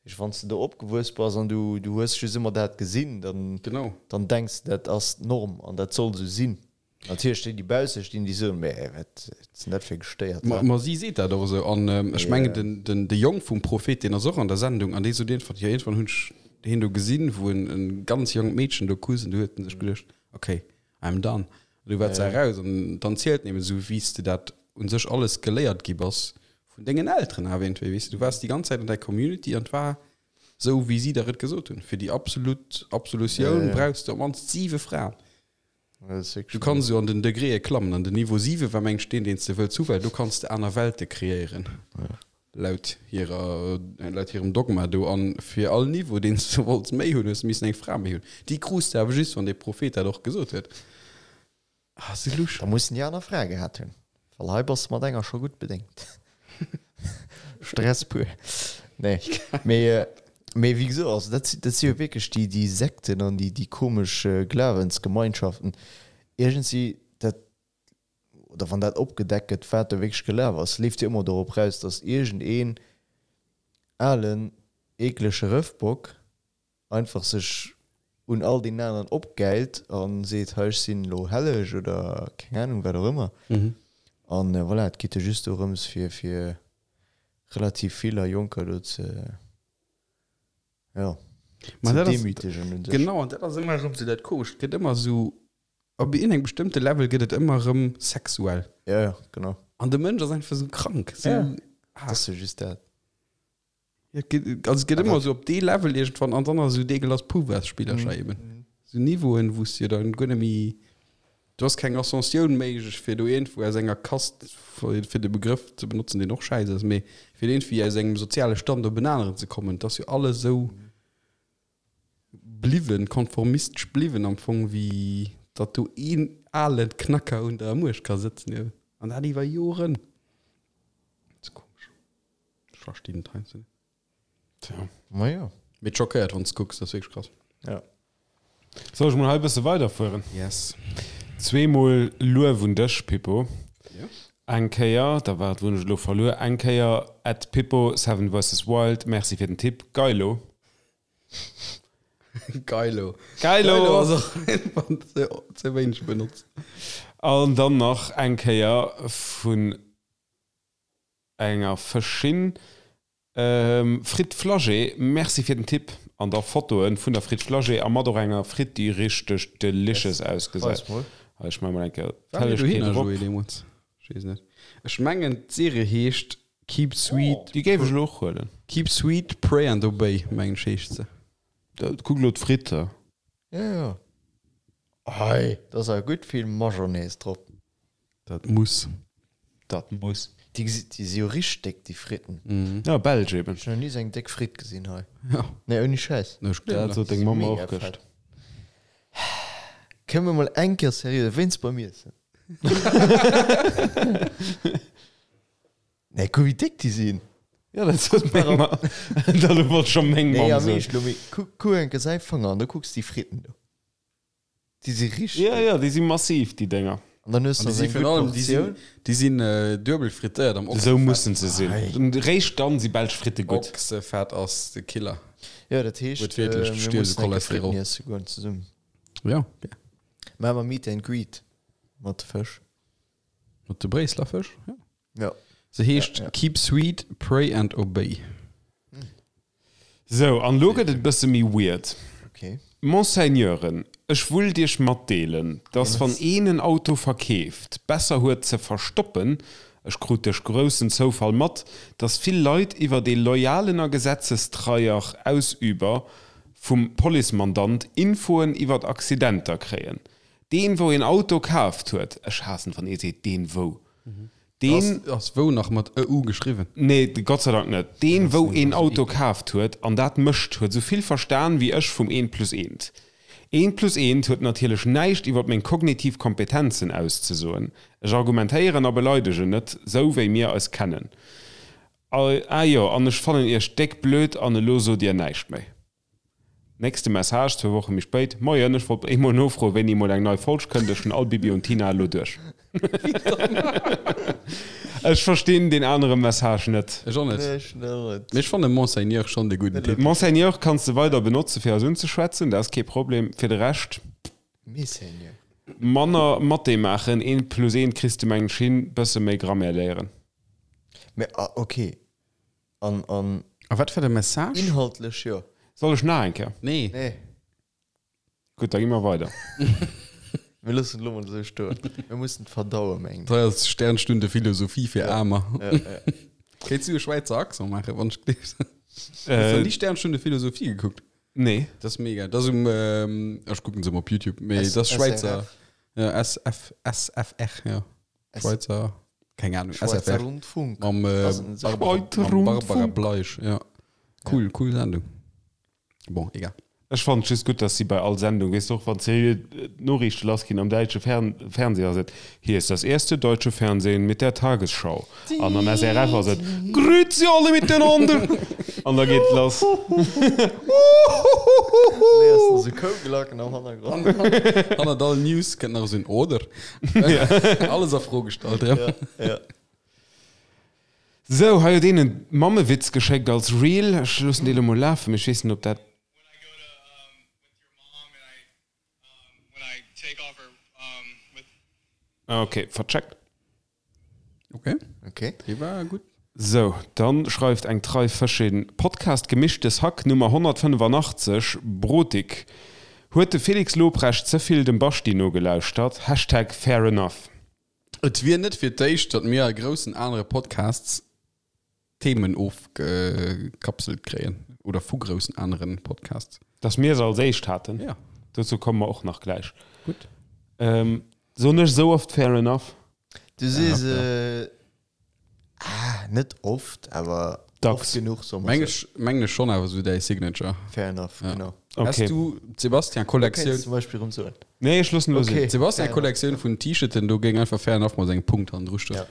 Heesch, wann s de do opgewuess bass an du, du hues just ëmmer dat gesinn, dann, Genau. dann denks de, dat ass d'Norm an dat soll esou sinn. Natierlech déi, déi bausse stinn, déi soen, Mä wat sinn dat fir Gestéiert, Ma, ma si seet dat och esou. An ech mengen, den, den, de Jong vum Prophet, deen ass och an der Sendung an dee sot iergendwann, jo, iergendwann hunn ech hien do gesinn, wou en e ganz jonkt Meedchen do kusst an du huet en sech geduecht, okay, I'm done. An du war se eraus an dann zielt nëmmen esou, wéi s de dat u sech alles geléiert gi bass vun dengen Elteren awer iergendwéi, weess de. Du waars déi ganz Zäit an där Community an et war esou, wéi si der et gesot hunn. Fir déi absolut Absolutioun brauchs de op d'mannst siwe Fraen. Du kanns esou an den Degréë klammen an den Niveau 7 war meng ech deen, deen s de wëlls hu, well do kanns de aner Welte kreéieren. Laut hirer, laut hirem Dogma do. An fir all Niveau, deen s de wollts méi hunn, hues de missen eng Fra méi hunn. Déi krus de awer just, wann dee Prophet dat och gesot huet. Ah, sou lusch. Da mussen déi aner Frae gehat hunn, well hei bass de mat enger scho gutt bedéngt. Stress pur. Nee, mee, mee wéi gesot, also dat, dat si jo wierklech déi, déi Sekten an déi, déi komesch Glawensgemeinschaften. Iergendwéi, dat, oder wann dat opgedeckt gëtt, wat do wierklech gelaf ass, leeft jo ëmmer dorop raus, datt iergendeen alen, eeklege Rëffbock einfach sech un all deenen aneren opgäilt a seet, hei ech sinn elo helleg oder keng Anung wat och ëmmer. An voilà, et geet jo just dorëms fir fir relativ vill a Jonker do ze, jo, ze demütegen un sech. Genau, an dat ass ëmmer erëm esou dat Komescht, et gëtt ëmmer esou Op iergendengem bestëmmte Level gëtt et ëmmer erëm sexuell. Ja, ja, genau. An de Mënsch ass einfach esou krank. Esou, ja, ah. Dat ass jo just dat. Ja, et gëtt, also et gëtt ëmmer esou op dee Level iergendwann an dann ass esou dee Glas Pouvoirsspillercher mm. eben. Esou Niveauen, wou s du dann guer net méi, do ass keng Ascensioun méiglech, fir do iergendwou aus enger Kast, fir de Begrëff ze benotzen, deen och schäiss ass, mee fir iergendwéi aus engem soziale Stand op en aneren ze kommen. Et ass jo alles esou. Bliwwen, konformistesch bliwwen am Fong, wéi datt do een ale Knacker un der Muecht ka sëtzen eben. An dat iwwer Joren. Dat ass komesch. Ech verstinn et heiansdo net. Tja. Majo. Mee et schockéiert, wann s de kucks, dat ass wierklech krass. Ja. Soll ech mol hei e bësse weiderfueren? Yes. Zweemol Luef un dech, Pippo. Jo. Eng Kéier, da waart, wou hunn ech elo verluer? Eng Kéier at Pippo, Seven versus Wild, merci fir den Tipp. Geilo. Geilo. Geilo. Geilo ass och einfach ze, ze wéineg benotzt. An dann nach eng Kéier vun enger Fëschin, Frit Flagey, merci fir den Tipp. An da Fotoen vun der Fritt Flagey a mat och enger Fritt déi richteg delicious ausgesäit. Weis mol. Hei ech maache mol eng Kéier War mir d'Hellegkeet dohinner, erop. Joé, deemools? Ech weess net. Ech mengen d'Serie heescht Keep Sweet, Déi géif ech elo och huelen. Keep Sweet, Pray and Obey, mengen ech heescht se. Kuck elo d'Fritte. Jo jo. Hei, da ass awer gutt vill Majonnaise drop. Dat muss. Dat muss. Déi gesi, déi si jo richteg déck, déi Fritten. Ja, belsch eben. Ech hunn nach ni esou eng déck Fritt gesinn hei. Ja. Nee, ouni Schäiss. Ech gleewen Dat sot deng Mamm och gëscht. Kënne mer mol eng Kéier seriö wéinst beim Iessen? Nee, kuck wéi déck déi sinn. Ja, dat sot meng Mamm. Dat elo wollt scho meng Nee, Mamm am soen. Eescht elo, mee kuck, kuck eng Kéier säi Fanger an da kucks déi Fritten do. Déi si richteg. Ja, ja, déi si massiv, déi Dénger. An dann hues An de déi si eng virun gutt allem, déi sinn, Portioun. déi sinn duebel frittéiert am Esou Ochsefett. mussen se sinn. Réischt dann si belsch Fritte gutt. Ochsefett ass de Killer. Jo, dat heescht, Wuertwiertlech, du mir stierfs u mussen eng Kéier Cholesterol. Fritten iesse goen zesummen. Ja, gär. Maache mer Meet and Greet mat de Fësch. Mat de Bréisseler Fësch, ja. Ja. Se heescht Ja, ja. Keep Sweet, Pray and Obey. Sou, an elo gëtt et e bësse méi weird. Okay. Monseigneuren, ech wullt iech matdeelen, dass wann een en Auto verkeeft, besser huet ze verstoppen, ech krut duerch groussen Zoufall mat, dass vill Leit iwwert ee loyalen a gesetzestreier Ausüber vum Policemandant Infoen iwwert Accidenter kréien. Deen wou een Auto kaaft huet, ech haassen wann ee seet deen wou, deen. Ass wou nach mat e u geschriwwen? Nee, Gott sei Dank net. Deen wou een Auto kaaft huet an dat mécht, huet esou vill verstan wéi ech vum eent plus eent. Eent plus eent huet natierlech näischt iwwert meng kognitiv Kompetenzen auszesoen. Ech argumentéieren a beleidegen net, sou wéi mir eis kennen. Ah jo, an ech fannen iech déck blöd an elo sot dir näischt méi. Nächste Message, zwou Woche méi spéit, Moien, ech wollt eemol nofroen, wéini emol eng nei Folg kënnt. Ech hunn all Bibi und Tina elo duerch. Ech verstinn deen anere Message net. Ech och net. Nee, ech och net. Mee ech fannen Monseigneur schonn de gudden Titel. Monseigneur kanns de weider benotze fir eis unzeschwätzen, dat ass kee Problem. Fir de Rescht, Messeigneur. manner Mathé maachen, eent plus eent kriss de mengen ech hin, bësse méi Grammaire léieren. Mee, ah, okay. An, an. A wat war de Message? Inhaltlech jo. Soll ech nach eng Kéier? Nee. Nee. Gutt, da gi mer weider. Mir loossen et elo mol esou stoen. Mir mussen et verdauen, mengen ech. Dat hei ass Sternstunde Philosophie fir Aarmer. Ja, ja. Kéints du e Schwäizer Accent maachen, wann ech gleefs? Hues du ni Sternstunde Philosophie gekuckt? Nee. Dat ass mega. Dat ass um, ech kucken se ëmmer op YouTube, mee dat ass Schwäizer. SRF. Ja, SF, SFR, ja. Schweizer, keng Ahnung, Schweizer SFR. Rundfunk. Mam, äh, Ass en Barbara, Schweizer mam Barbara Rundfunk. Bleisch, ja. Cool, cool Sendung. Bon, egal. Ech fannen et just gutt, dass si bei all Sendung, weess de och, wann se d'Noriichte lassginn am däitsche Fern Fernseh ass et, Hier ist das erste deutsche Fernsehen mit der Tagesschau. An am SRF ass et, Grüezi alle miteinander! An da geet et lass. Nee, ass da sou Kouglacken am Hannergrond. Hannert all News kënnt nach esou en Oder. Alles a Fro gestallt erëm. Ja, ja. Sou, hei huet een en Mammewitz geschéckt als Reel. Ech loossen dee lo mol lafen, mee ech weess net, ob dat. Ah, ok, vercheckt. Ok. Ok. Dee war gutt. Sou, dann schreift eng trei Fëschin, Podcast Gemischtes Hack Nummer 185, Brotik. Huet de Felix Lobrecht ze vill dem Baschti nogelauschtert? Hashtag fair enough. Et wier net fir d'éischt, datt mir a groussen anere Podcasts Themen ofgekapselt kréien oder vu groussen aneren Podcasts. Dass mir se als éischt haten? Ja. Dozou komme mer och nach gläich. Gutt. Soen ech esou oft fair enough? Du sees ah, net oft, awer Dacks. oft genuch, soe mer Meng sou. ech, mengen ech schonn awer esou däi Signature. Fair enough, Ja. genau. Okay. Has du d'Sebastian-Kollektioun? Kéints zum Beispill erëm soen. Nee, ech loossen elo sinn. Okay. D'Sebastian-Kollektioun vun T-Shirten, do géing einfach fair enough mat engem Punkt hannendru stoen. Ja.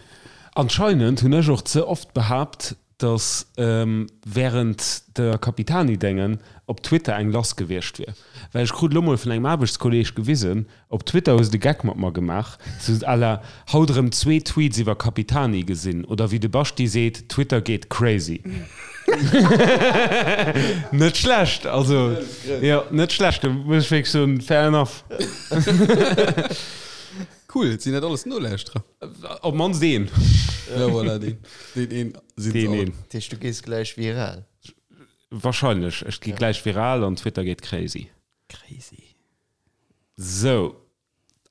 Anscheinend hunn ech och ze oft behaapt, datt wärend der Capitani-Déngen op Twitter eng lass gewiescht wier. Well ech krut elo mol vun engem Aarbechtskolleeg gewisen, op Twitter hu se de Geck mat mer gemaach, sou à la haut erëm zwee Tweets iwwer Capitani gesinn oder wéi de Baschti seet, Twitter geet crazy. Net schlecht, also jo, net schlecht, do muss ech wierklech soen, fair enough. Cool, sinn dat alles Nolauschterer? Op mannst een. Ja, voilà, deen, deen een sinn Deen se all. een. Dat heescht, du gees gläich viral. Wahrscheinlech. Ech gi gläich viral an Twitter geet crazy. Crazy. Sou.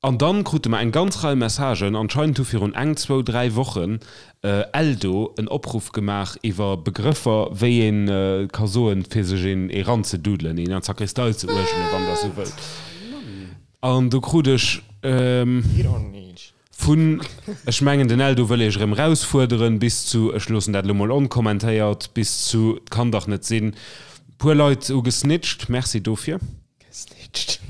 An dann krute mer eng ganz Rei Messagen. Anscheinend hu virun eng, zwou, dräi Wochen Eldo en Opruff gemaach iwwer Begrëffer, wéi ee ka soen, fir sech een eranzedudelen, een an d'Sakristei ze uergelen, wann Der esou wëllt. An do krut ech vun, ech mengen den Eldo wëll Iech erëm erausfuerderen, bis zu, ech loossen dat elo mol onkommentéiert, bis zu, 't kann dach net sinn, puer Leit hu gesnitcht. Merci dofir. Gesnitcht.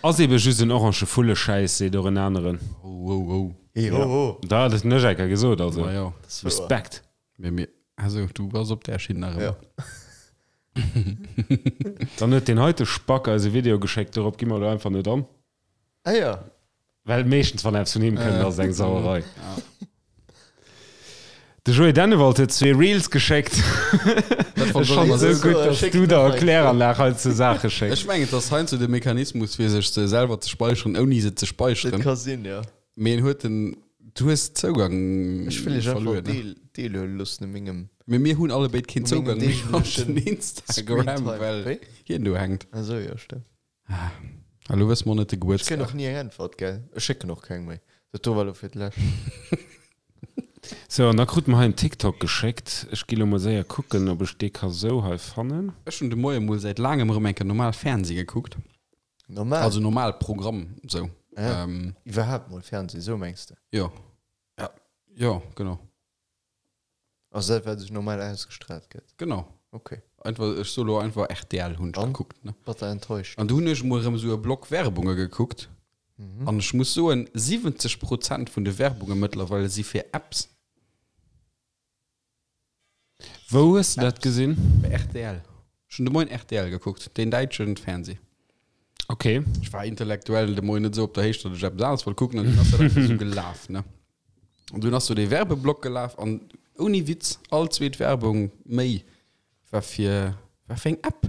Ass eben just en orange Vulleschäiss, seet och en aneren. Ho, ho, ho. Hey, ho, ho. Da hat et den Echecker gesot, also Ma jo. Respekt. Mee mir, also du bass op där Schinn nach ëmmer. Ja. Dann huet deen heite Spack eis e Video geschéckt, dorop gi mer elo einfach net an. Ah ja. Well meeschtens wann eppes vun him kënnt, ass et eng Sauerei. De Joé Dennewald huet zwee Reels geschéckt. Dat Ech fannen et esou gutt, dass du der Kläranlag hei zu Saache schécks. Ech mengen, et ass heiansdo de Mechanismus, fir sech se selwer ze speicheren, ouni se ze speicheren. Dat ka sinn, jo. Mee en huet den, du hues Zougang Ech wëll iech einfach verluer, ne? deel, deelhuele loossen u mengem, Mee mir hunn allebéid keen u mengem Zougang méi op den deeglechen Instagram, Screentime. well Wéi? hien do hänkt. Ah sou, jo, stëmmt. Ah, elo wësse mer net de Ech kréien Gebuertsdag. och ni eng Äntwert, gell? Ech schécken och keng méi. Dat do war elo fir d'lescht. Sou, an da krute mer hei en TikTok geschéckt. Ech gi lo mol séier kucken, ob ech dee ka sou hei fannen. Ech hunn de Moie mol säit laangem erëm eng Kéier normal Fernseh gekuckt. Normal? Also normal Programm, sou. Ah, iwwerhaapt mol Fernseh, sou mengs de? Jo. Ja, jo, genau. Also dat wat sech normal ausgestrahlt gëtt? Genau. Ok. Einfach, ech soe lo einfach rtl hunn ech gekuckt, ne. Batter enttäuscht. An du hunn ech emol erëm esou e Block Werbunge gekuckt. An ech muss soen, 70 Prozent vun de Werbunge mëttlerweile si fir Apps. Wou hues de dat gesinn? Bei rtl. Ech hunn de Moien rtl gekuckt, deen däitschen Fernseh. Ok. Ech war intellektuell de Moien net esou op der Héicht, datt ech eppes aneres wollt kucken an dunn ass dat einfach esou gelaf, ne. An dunn ass do dee Werbeblock gelaf an ouni Witz, all zweet Werbung méi war fir, war fir eng App.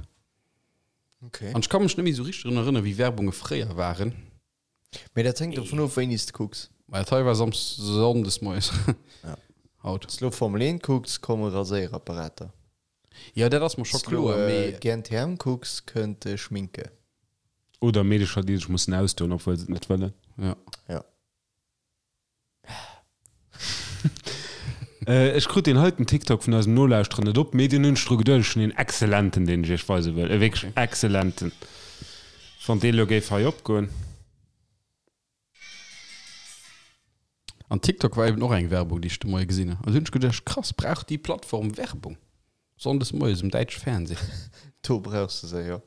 Okay. An ech ka mech net méi esou richteg drun erënneren, wéi Werbunge fréier waren. Mee dat hänkt dovun of, wéini s de kucks. Mä dat hei war Sam's Sonndes moies. Ja. Haut. Wann s de lo Formel 1 kucks, komme Raséierapparater. Jo, dat ass mer scho Wann s de lo kloer, mee. GNTM kucks, kënnt Schminke. Oder Meedecher, déi sech mussen ausdoen, obwuel se et net wëllen. Ja. Ja. Ech krut deen heiten TikTok vun eisem Nolauschterer net op, mee deen hunn ech dru geduecht. Ech hunn een excellenten, deen ech iech weise wëll. E wierklech excellenten. Wann dee lo géif hei opgoen. An TikTok war eben och eng Werbung, déi ech de Moie gesinn hunn. An du hunn ech geduecht, krass, brauch déi Plattform Werbung? Sonndes moies um däitsche Fernseh. Do brauchs de se, jo.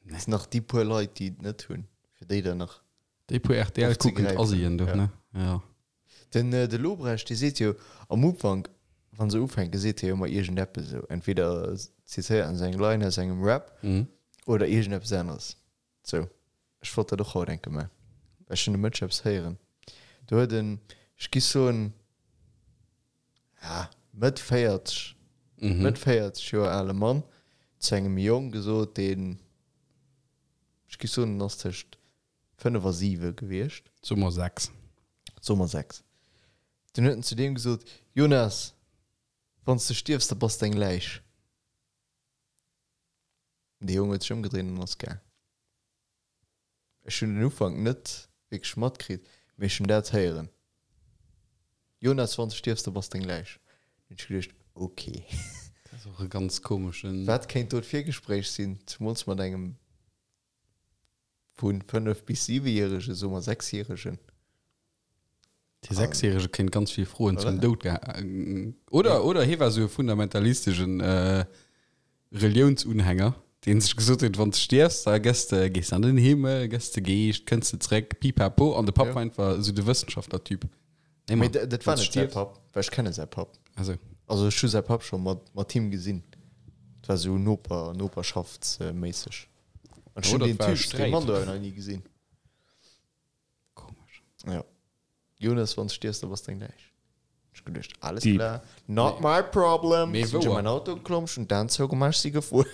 Nee. Nach déi puer Leit, déi et net hunn, fir déi dann nach. Déi puer RTL kuckend Asien do, ne? Ja. Den de Lobrecht, dee seet jo am Ufank, wa se ufänken, seet hie jo ëmmer iergendeppes esou. Entweder zitéiert en sou eng Line aus engem Rap oder iergendeppes aneres. Sou, ech wollt dat och haut enke man, well ech hunn de Mëtsch eppes héieren. Do huet en, ech gi soen, ja, Mëtt 40, Mëtt 40 Joer ale Mann zu engem Jong gesot, deen, ech gi soen, en ass tëscht 5 a 7 gewiescht. Soe mer 6. Soe mer 6. Dunn huet en zu deem gesot, Jonas, wann s de stierfs, da bass de eng Läich. Dee Jong huet sech ëmgedréint an ass gaang. Ech hunn den Ufank net wierklech matkritt, mee ech hunn dat héieren, Jonas, wann s de stierfs, da bass de eng Läich. Dunn hunn ech geduecht, ok. Dat ass och e ganz komeschen. Wat kéint do d'Virgespréich sinn, zemools mat engem vu 5 bis 7 järegen, soe mer 6 järegen. Dee Sechsjärege kéint ganz vill Froen zum Doud geha oder oder hie war sou e fundamentalisteschen Reliounsunhänger, dee sech gesot huet, wann s de stierfs, da gëss de, gees de an den Himmel, gëss de Geescht, kënns de zréck, pipapo. An de Papp war einfach sou de Wëssenschaftler-Typ. Nee, Mee dat war net säi Papp, well ech kenne säi Papp. Ah sou. Also ech hu säi Papp scho mat mat him gesinn. Dat war sou Noper, noperschaftsméisseg. An ech hunn deen Typ, dee Mann do awer nach ni gesinn. Komesch. Ja. Jonas, wann s stierfs, da bass de eng Läich. Ech geduecht, alles Deep. klar, not my problem. Mee Sinn ech wouer. an mein Auto geklomm, ech hunn d'Aen zougemaach, ech si gefuer.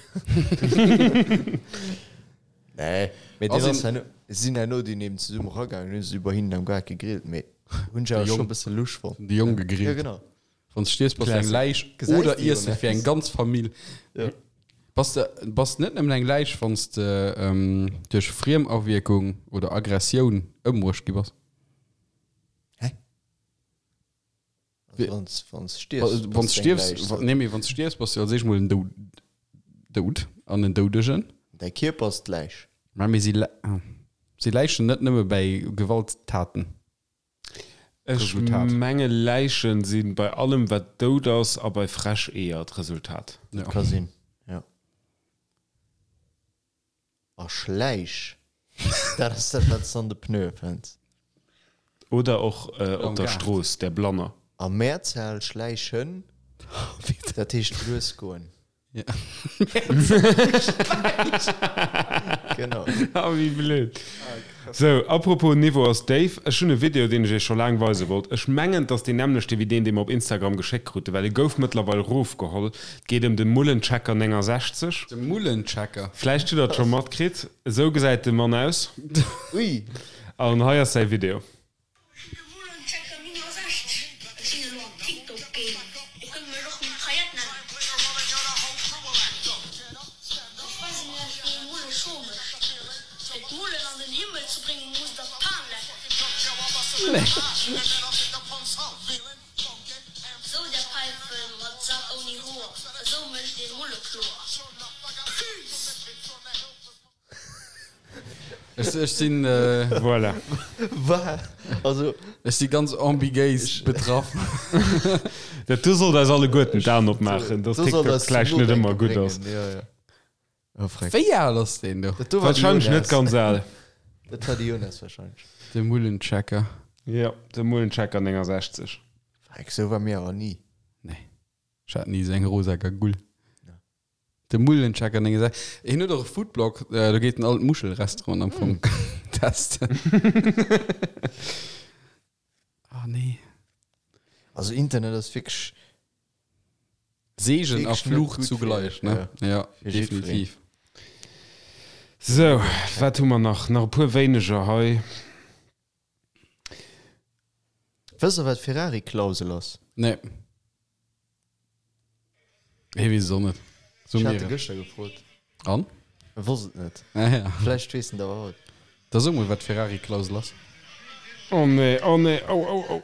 Nee, mee Ass deen ass een- herno, sinn herno dunn eben zesumme eragaangen, hunn se iwwer hinnen am Gaart gegrillt, mee hunn ech awer De scho Jong. e bësse lusch fonnt. De Jong Ja, gegrillt. genau. Wann s de stierfs, bass de eng Läich oder Iesse fir eng ganz Famill. Bass de bass net nëmmen eng Läich, wann s de duerch Friemawierkung oder Aggressioun ëmbruecht gi bass? Hä? Also wann s wann s stierfs, Wann s stierfs, nee mee wann s stierfs, bass de als éischt mol en Doud an en Doudegen. Däi Kierper ass d'Läich. Mä mir si si Läichen net nëmme bäi Gewalttaten. Ech Resultat. menge Läichen si bei allem wat dout ass a bei frech Eeër d'Resultat. Dat ka sinn, jo. A Schläich, dat ass dat wat s de an de Pneue fënns. Oder och op der Strooss, der Blanner. A Mehrzahl Schläichen, dat heescht lues goen. Ja. Genau. Ah, wéi blöd. Sou, apropos Niveau ass déif, ech hunn e Video, deen ech iech scho laang weise wollt. Ech mengen, et ass deen nämmlechte wéi deen, dee mer op Instagram geschéckt kruten, well e gouf mëttlerweil rofgeholl. Et geet ëm de Mullenchecker 69. De Mullenchecker? Vläicht hutt der et scho matkritt. Esou gesäit de Mann aus. Ui! An hei ass säi Video. De Mullenchecker 69, Ech sinn elo am TikTok Game, Dir kënnt mech och Mitraillette nennen. Ech weisen iech wéi ee Mulle scho mécht. Fir d'Mullen an den Himmel ze bréngen musst der d'Pan lecken. Sou där Päifen mat Sak ouni Hoer, esou mécht een Mulle kloer. Peace! Ech, ech sinn. Voilà. Wa? Also. Ech si ganz ambigéis betraff. Dat do sollt eis alleguerten d'Aen opmaachen, dass Do sollt TikTok eis zum vläicht net ëmmer Nodenke gutt ass. bréngen, jo, jo. Oh, freck. Wéi al ass deen do? Dat do war de Wahrscheinlech net Jonas. ganz al. Dat war de Jonas wahrscheinlech. De Mullenchecker. Jo, de Mullenchecker 69. Freck, sou war mir awer ni. Nee. Ech hat ni esou eng rosa Gagull. De Mullenchecker 69. Hien huet och e Foodblog, do geet en all d'Muschelrestauranten am Fong testen. Ah nee. Also Internet ass wierklech. Segen a Wierklech net Fluch gutt fir- zugleich, ne? Ja, fir jiddwereen. definitiv. Sou, wat hu mer nach? Nach e puer wéineger hei. Wësst der wat Ferrari-Klausel ass? Nee. Hie weess et och net. So Ech mir hat e et. gëschter gefrot. An? E wosst et net. Ah ja. Vläicht weess en et awer haut. Da so mol, wat d'Ferrari-Klausel ass. Oh nee, oh nee, oh, oh, oh.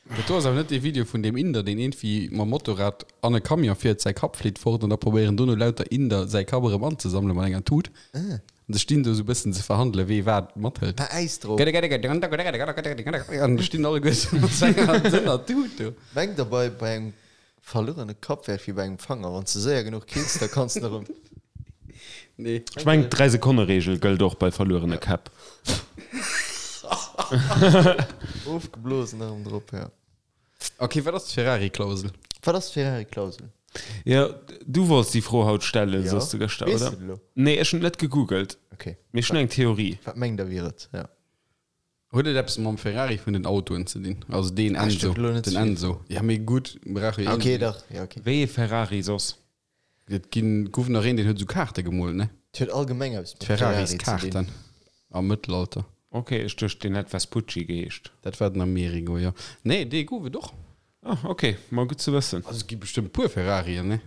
Dat do ass awer net dee Video vun deem Inder, deen iergendwéi mam Motorrad an e Camion fiert, säi Kapp flitt fort an da probéieren dono lauter Inder säi Kapp erëm anzesammelen mat enger Tut. An se stinn do esou e bëssen ze verhandelen, wee wat mathëlt. Mä Äis drop. An da stinn alleguer esou mat senger dënner Tut do. Mengt der bei bei engem verluerene Kapp wär et wéi bei engem Fanger, wann s de séier genuch kills, da kanns de erëm. Nee. Ech mengen d'Dräi-Sekonne-Reegel gëllt och bei verluerene Käpp. Ofgeblosen erëm drop, jo. Ok, wat ass d'Ferrari-Klausel? Wat ass d'Ferrari-Klausel? Jo, du wollts déi Fro haut stellen, Jo. soss de gëschter, Weess oder? de et elo? Nee, ech hunn et net gegoogelt, Ok. mee ech hunn eng Theorie. Wat mengt der wier et? Ja. Huet et eppes mam Ferrari vun den Autoen ze dinn? Also deen Ah, Enzo, stimmt, elo net den ze vill. Enzo. Ja, mee gutt, brauch jo Ok, een. dach, ja, ok. Wéi ee Ferrari soss? Et ginn, gouf nach een, deen huet esou Kaarte gemoolt, ne? Et huet allgemeng eppes mat Ferrari ze dinn. D'Ferraris-Kaarten am Mëttelalter. Ok, ech duecht deen hätt Vespucci geheescht. Dat war den Amerigo, jo. Nee, dee gouf et och. Ah, ok, ma gutt ze wëssen. Also et gi bestëmmt puer Ferrarien, ne?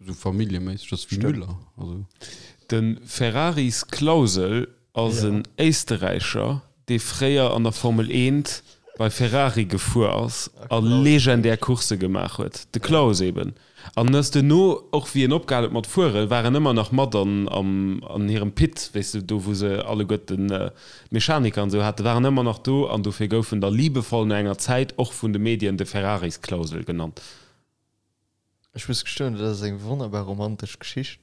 Esou familljeméisseg, dat ass wéi Müller, also. De Ferraris Klausel ass en Éisterräicher, dee fréier an der Formel 1 bei Ferrari gefuer ass a legendär Coursse gemaach huet. De Klaus eben. An ass duerno, och wéi en opgehal huet mat fueren, war en ëmmer nach mat an an hirem Pit, weess de, do wou se alleguerten d'Mechaniker an esou haten, war en ëmmer nach do an dofir gouf en da liebevoll no enger Zäit och vun de Medien de Ferraris-Klausel genannt. Ech muss gestoen, dat ass eng wonnerbar romantesch Geschicht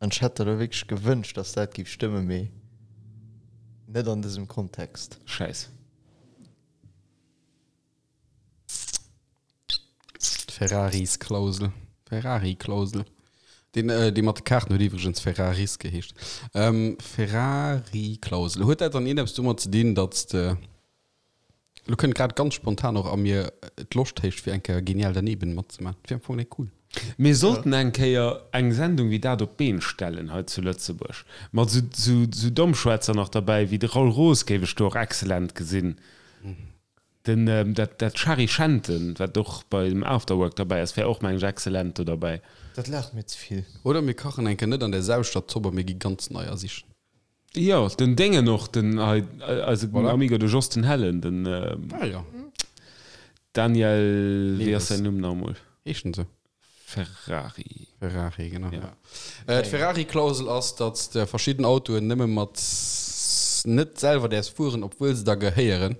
an ech hätt der elo wierklech gewënscht, dass dat géif stëmmen, mee net an dësem Kontext. Schäiss. D'Ferraris-Klausel. Ferrari-Klausel. Deen, dee mat de Kaarten huet iwwregens Ferraris geheescht. Ferrari-Klausel. Huet dat dann iergendeppes domat ze dinn, datt s de. Lo kënnt grad ganz spontan och a mir d'Loscht héich fir eng Kéier Genial daneben matzemaachen. Dat wier am Fong net cool. Mir sollten eng Kéier eng Sendung wéi dat op d'Been stellen hei zu Lëtzebuerg. Mat esou Dommschwätzer nach derbäi wéi de Raoul Roos géif ech do och excellent gesinn. Den, dat, dat Shari Schenten, wat och bei dem Afterwork derbäi ass, wär och, meng ech, excellent do derbäi. Dat laacht mir ze vill. Oder mir kachen eng Kéier net an där selwechter Zopp a mir gi ganz neier sichen. Jo, den Déngen och, den hei, eise Voilà. Amigo, de Jos den Hellen, den Ah jo. Daniel, wéi ass Neves. säin Numm nach emol? Heescht en sou? Ferrari. Ferrari, genau. Ja. Äh, D'Ferrari-Klausel ass, datt s de verschidden Autoen nëmme mat net selwer däerfs fueren, obwuel se der gehéieren.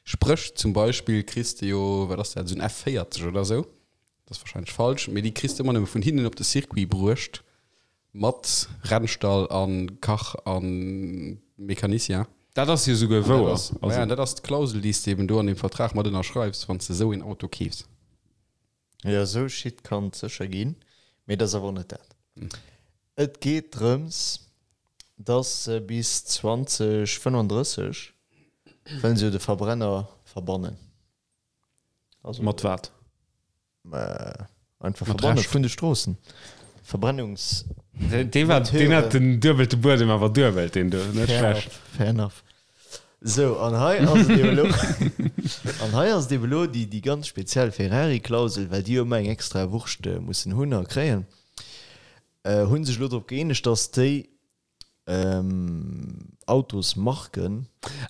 Spréch zum Beispill kriss de jo, wat ass dat, esou en F40 oder esou, dat ass warscheinlech falsch, mee déi kriss de ëmmer nëmme vun hinnen op de Circuit bruecht mat Rennstall a Kach a Mecanicien. Dat ass jo souguer wouer. Dat ass, ja, dat ass d'Klausel, déi s de eben do an deem Vertrag mat ënnerschreifs, wann s de esou een Auto keefs. Jo, esou Shit kann et sécher ginn, mee et ass awer och net dat. Et geet drëms, dass se bis 2035 wëllen se jo de Verbrenner verbannen. Also Mat wat? Einfach verbanne vun de Stroossen. Verbrennungs. Dee war, deen hat den duebelte Buedem awer duebelt, deen do, net schlecht. Fair enough. Sou, an hei ass et eben elo, an hei ass et eben elo déi, déi ganz speziell Ferrari-Klausel, well déi jo ëmmer eng extra Wurscht mussen hunn a kréien, hu sech elo drop gëeenegt, dass déi Autosmarken.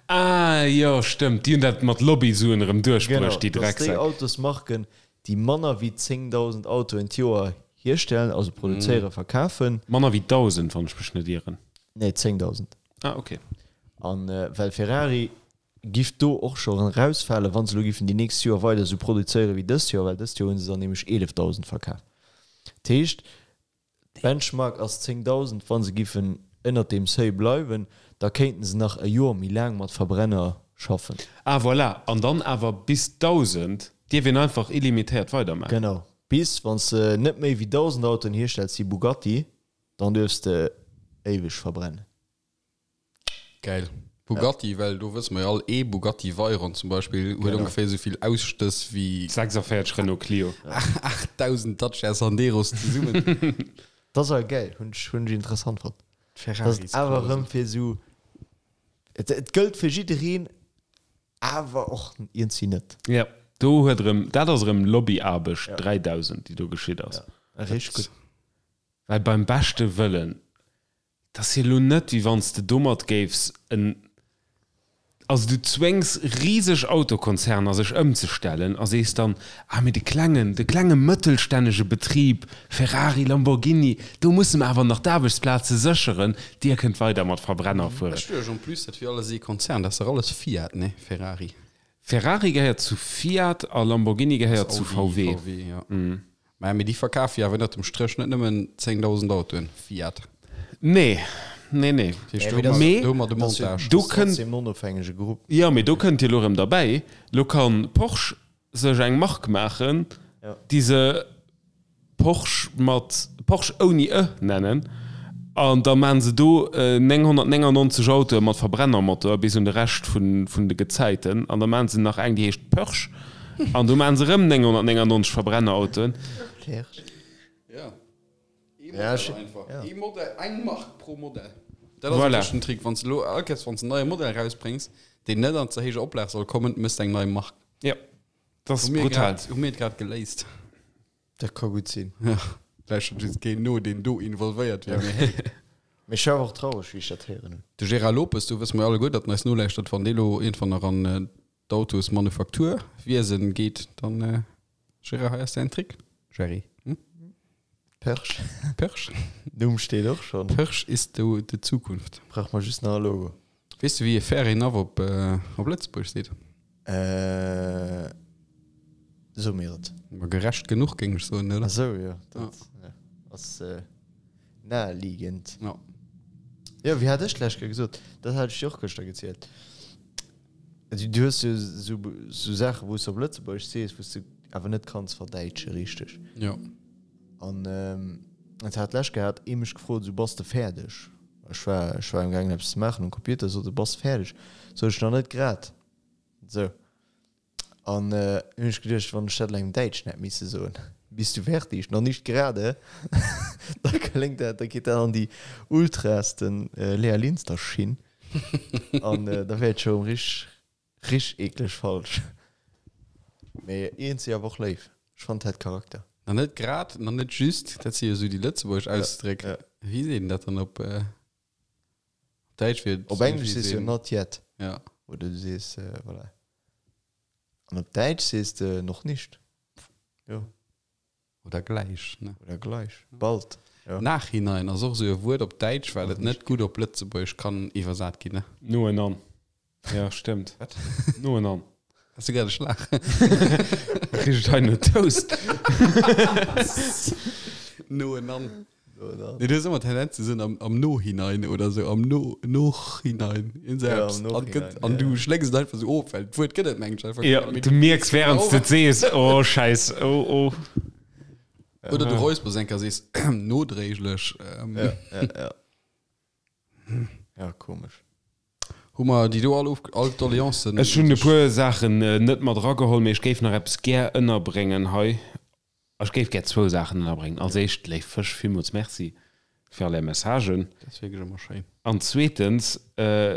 Ah jo, stëmmt, déi hunn dat mat Lobbysuen erëm duerchbruecht, déi Genau, dass déi Drecksäck. Autosmarken, déi manner wéi 10.000 Autoen d'Joer hierstellen, also produzéieren, verkafen. Manner wéi 1.000, wann ech mech net ieren. Nee, 10.000. Ah, ok. An well Ferrari giff do och scho erausfalen, wann se elo giffen déi nächst Joer weider esou produzéieren wéi dëst Joer, well dëst Joer hu se der nämlech 11.000 verkaf. Dat heescht, d'Benchmark ass 10.000. Wa se giffen ënnert deem Seuil bleiwen, da kéinten se nach e Joer méi laang mat Verbrenner schaffen. Ah, voilà. An dann awer bis 1.000 dierf een einfach illimitéiert weidermaachen. Genau. Bis, wann s de net méi wéi 1.000 Autoen hierstells wéi Bugatti, Dann duerfs de éiweg verbrennen. Geil. Bugatti, well do wësse mer jo all, ee Bugatti Veyron zum Beispill huet ongeféier esou vill Ausstëss wéi 46 Renault Clio. 8000 Dacia Sanderos zesummen. Dat ass awer geil, hunn ech hunn ech interessant fonnt. Dat ass awer erëm fir esou, et et gëllt fir jiddereen, awer och iergendwéi net. Jo, do huet erëm, dat ass erëm Lobbyaarbecht 3000, déi do geschitt ass. Ja, richteg gutt. Well beim beschte Wëllen, dat ass jo elo net, wéi wann s de domat géifs en, also du zwéngs riseg Autokonzerner sech ëmzestellen a sees dann, ah mee de klengen, de klenge mëttelstännege Betrib, Ferrari, Lamborghini, do musse mer awer nach d'Aarbechtsplaze sécheren, dir kënnt weider mat Verbrenner fueren. Ech duecht en plus, dat wier alles ee Konzern, dat ass dach alles Fiat, nee? Ferrari. Ferrari gehéiert zu Fiat a Lamborghini gehéiert zu VW. VW, jo. Maja, mee déi verkafe jo awer ënnert dem Stréch net nëmmen 10.000 Autoen, Fiat. Nee, nee, nee. Dat heescht, do hu mer, Mee do hu mer de Montage. do kënnt. Trotzdem en onofhängege Grupp. Jo, mee do kënnt jo elo erëm derbäi, elo ka Porsche sech eng Mark maachen, déi se Porsche mat, Porsche ouni e nennen, an da maachen se do 999 Autoe mat Verbrennermotor bis un de Rescht vun de Gezäiten, an da maachen se nach eng, déi heescht Pörsch. An do maachen se erëm 999 Verbrennerautoen. Ja. Ee Ja, Modell ech- einfach. ja. Ee Modell, eng Mark pro Modell. Dat ass Voilà. wierklech den Trick. Wann s de elo all Kéiers, wann s de en neie Modell erausbréngs, deen net an ze héijer Oplag soll kommen, méchs de eng nei Mark. Ja, dat ass Hu mir brutal. grad, hu mir et grad geléist. Dat ka gutt sinn. Ja, lauschtert just keen no, deen do involvéiert wier, mee hey. Mee ech war awer och traureg, wéi ech dat héieren hunn. De Gérard Lopes, do wësse mer jo alleguer, datt en eis nolauschtert, wann dee elo iergendwann nach an d'Autosmanufakturwiesen geet, dann Gérard, hei ass däin Trick. Gerry, hm? Perch. Perch. Numm steet och schonn. Perch ist do de Zukunft. Brauch mer just nach e Logo. Weess de wéi ee Fair enough op op Lëtzebuergesch seet? Äh, so mir et. Ma gerecht genuch géing ech soen, oder? Ah sou, jo. Dat ass naheliegend. Ja. Jo, wéi hat ech d'lescht Kéier gesot? Dat hat ech dir och gëschter gezielt. Du hues jo sou sou Saachen, wou s de op Lëtzebuergesch sees, wou s de awer net kanns verdäitsche richteg. Jo. An et hat d'lescht Kéier hat ee mech gefrot, esou, Bass de fäerdeg? Ech war ech war amgaangen eppes ze maachen um Computer, sot e, Bass de fäerdeg? Sot ech, Nach net grad. Sou. An hunn ech geduecht, wann ech dat elo engem Däitschen hätt misse soen. Bist du fertig? Noch nicht gerade. Da kléngt dat, da geet dat an déi ultrasten Lea Linster Schinn an da wär et scho rich rich eekleg falsch. Mee iergendwéi awer och léif. Ech fannen et hätt Charakter. Na net grad, na net just, dat si jo esou déi lëtzebuergesch Ausdréck. Wéi seet een dat dann op Däitsch? Wier et Op Englesch sees du jo not yet. Ja. Oder du sees, voilà. An op Däitsch sees de noch nicht. Jo. Oder gleich, ne? Oder gleich. Bald. Jo. Nachhinein ass och esou e Wuert op Däitsch, well et net gutt op Lëtzebuergesch kann iwwersat ginn, ne? Noenan. Ja, stëmmt. Wat? Noenan. Has du grad e Schlag? Kritt et hei no Toast. Noenan. Nee, du hues ëmmer d'Tendenz ze soen am, am Nohinein oder sou, am No, Nochinein, iergend sou Ja, eppes. am An Nochinein, gëtt, an ja. du schlécks et einfach sou of, well d'Wuert gëtt et mengen ech einfach Ja, net. du mierks während s de et sees, oh Schäiss, oh, oh. Oder du räuspers eng Kéier a sees nodréiglech. Ähm, Ja, ja, ja. Ja, komesch. Hu mer déi do all of, all d'Doleancen? Ech hunn e puer Saachen net mat erageholl, mee ech géif nach eppes gär ënnerbréngen hei. Ech géif gär zwou Saachen ënnerbréngen. Als éischt, léif Fësch, villmools Merci fir all är Messagen. Dat ass wierklech ëmmer schéin. An zweetens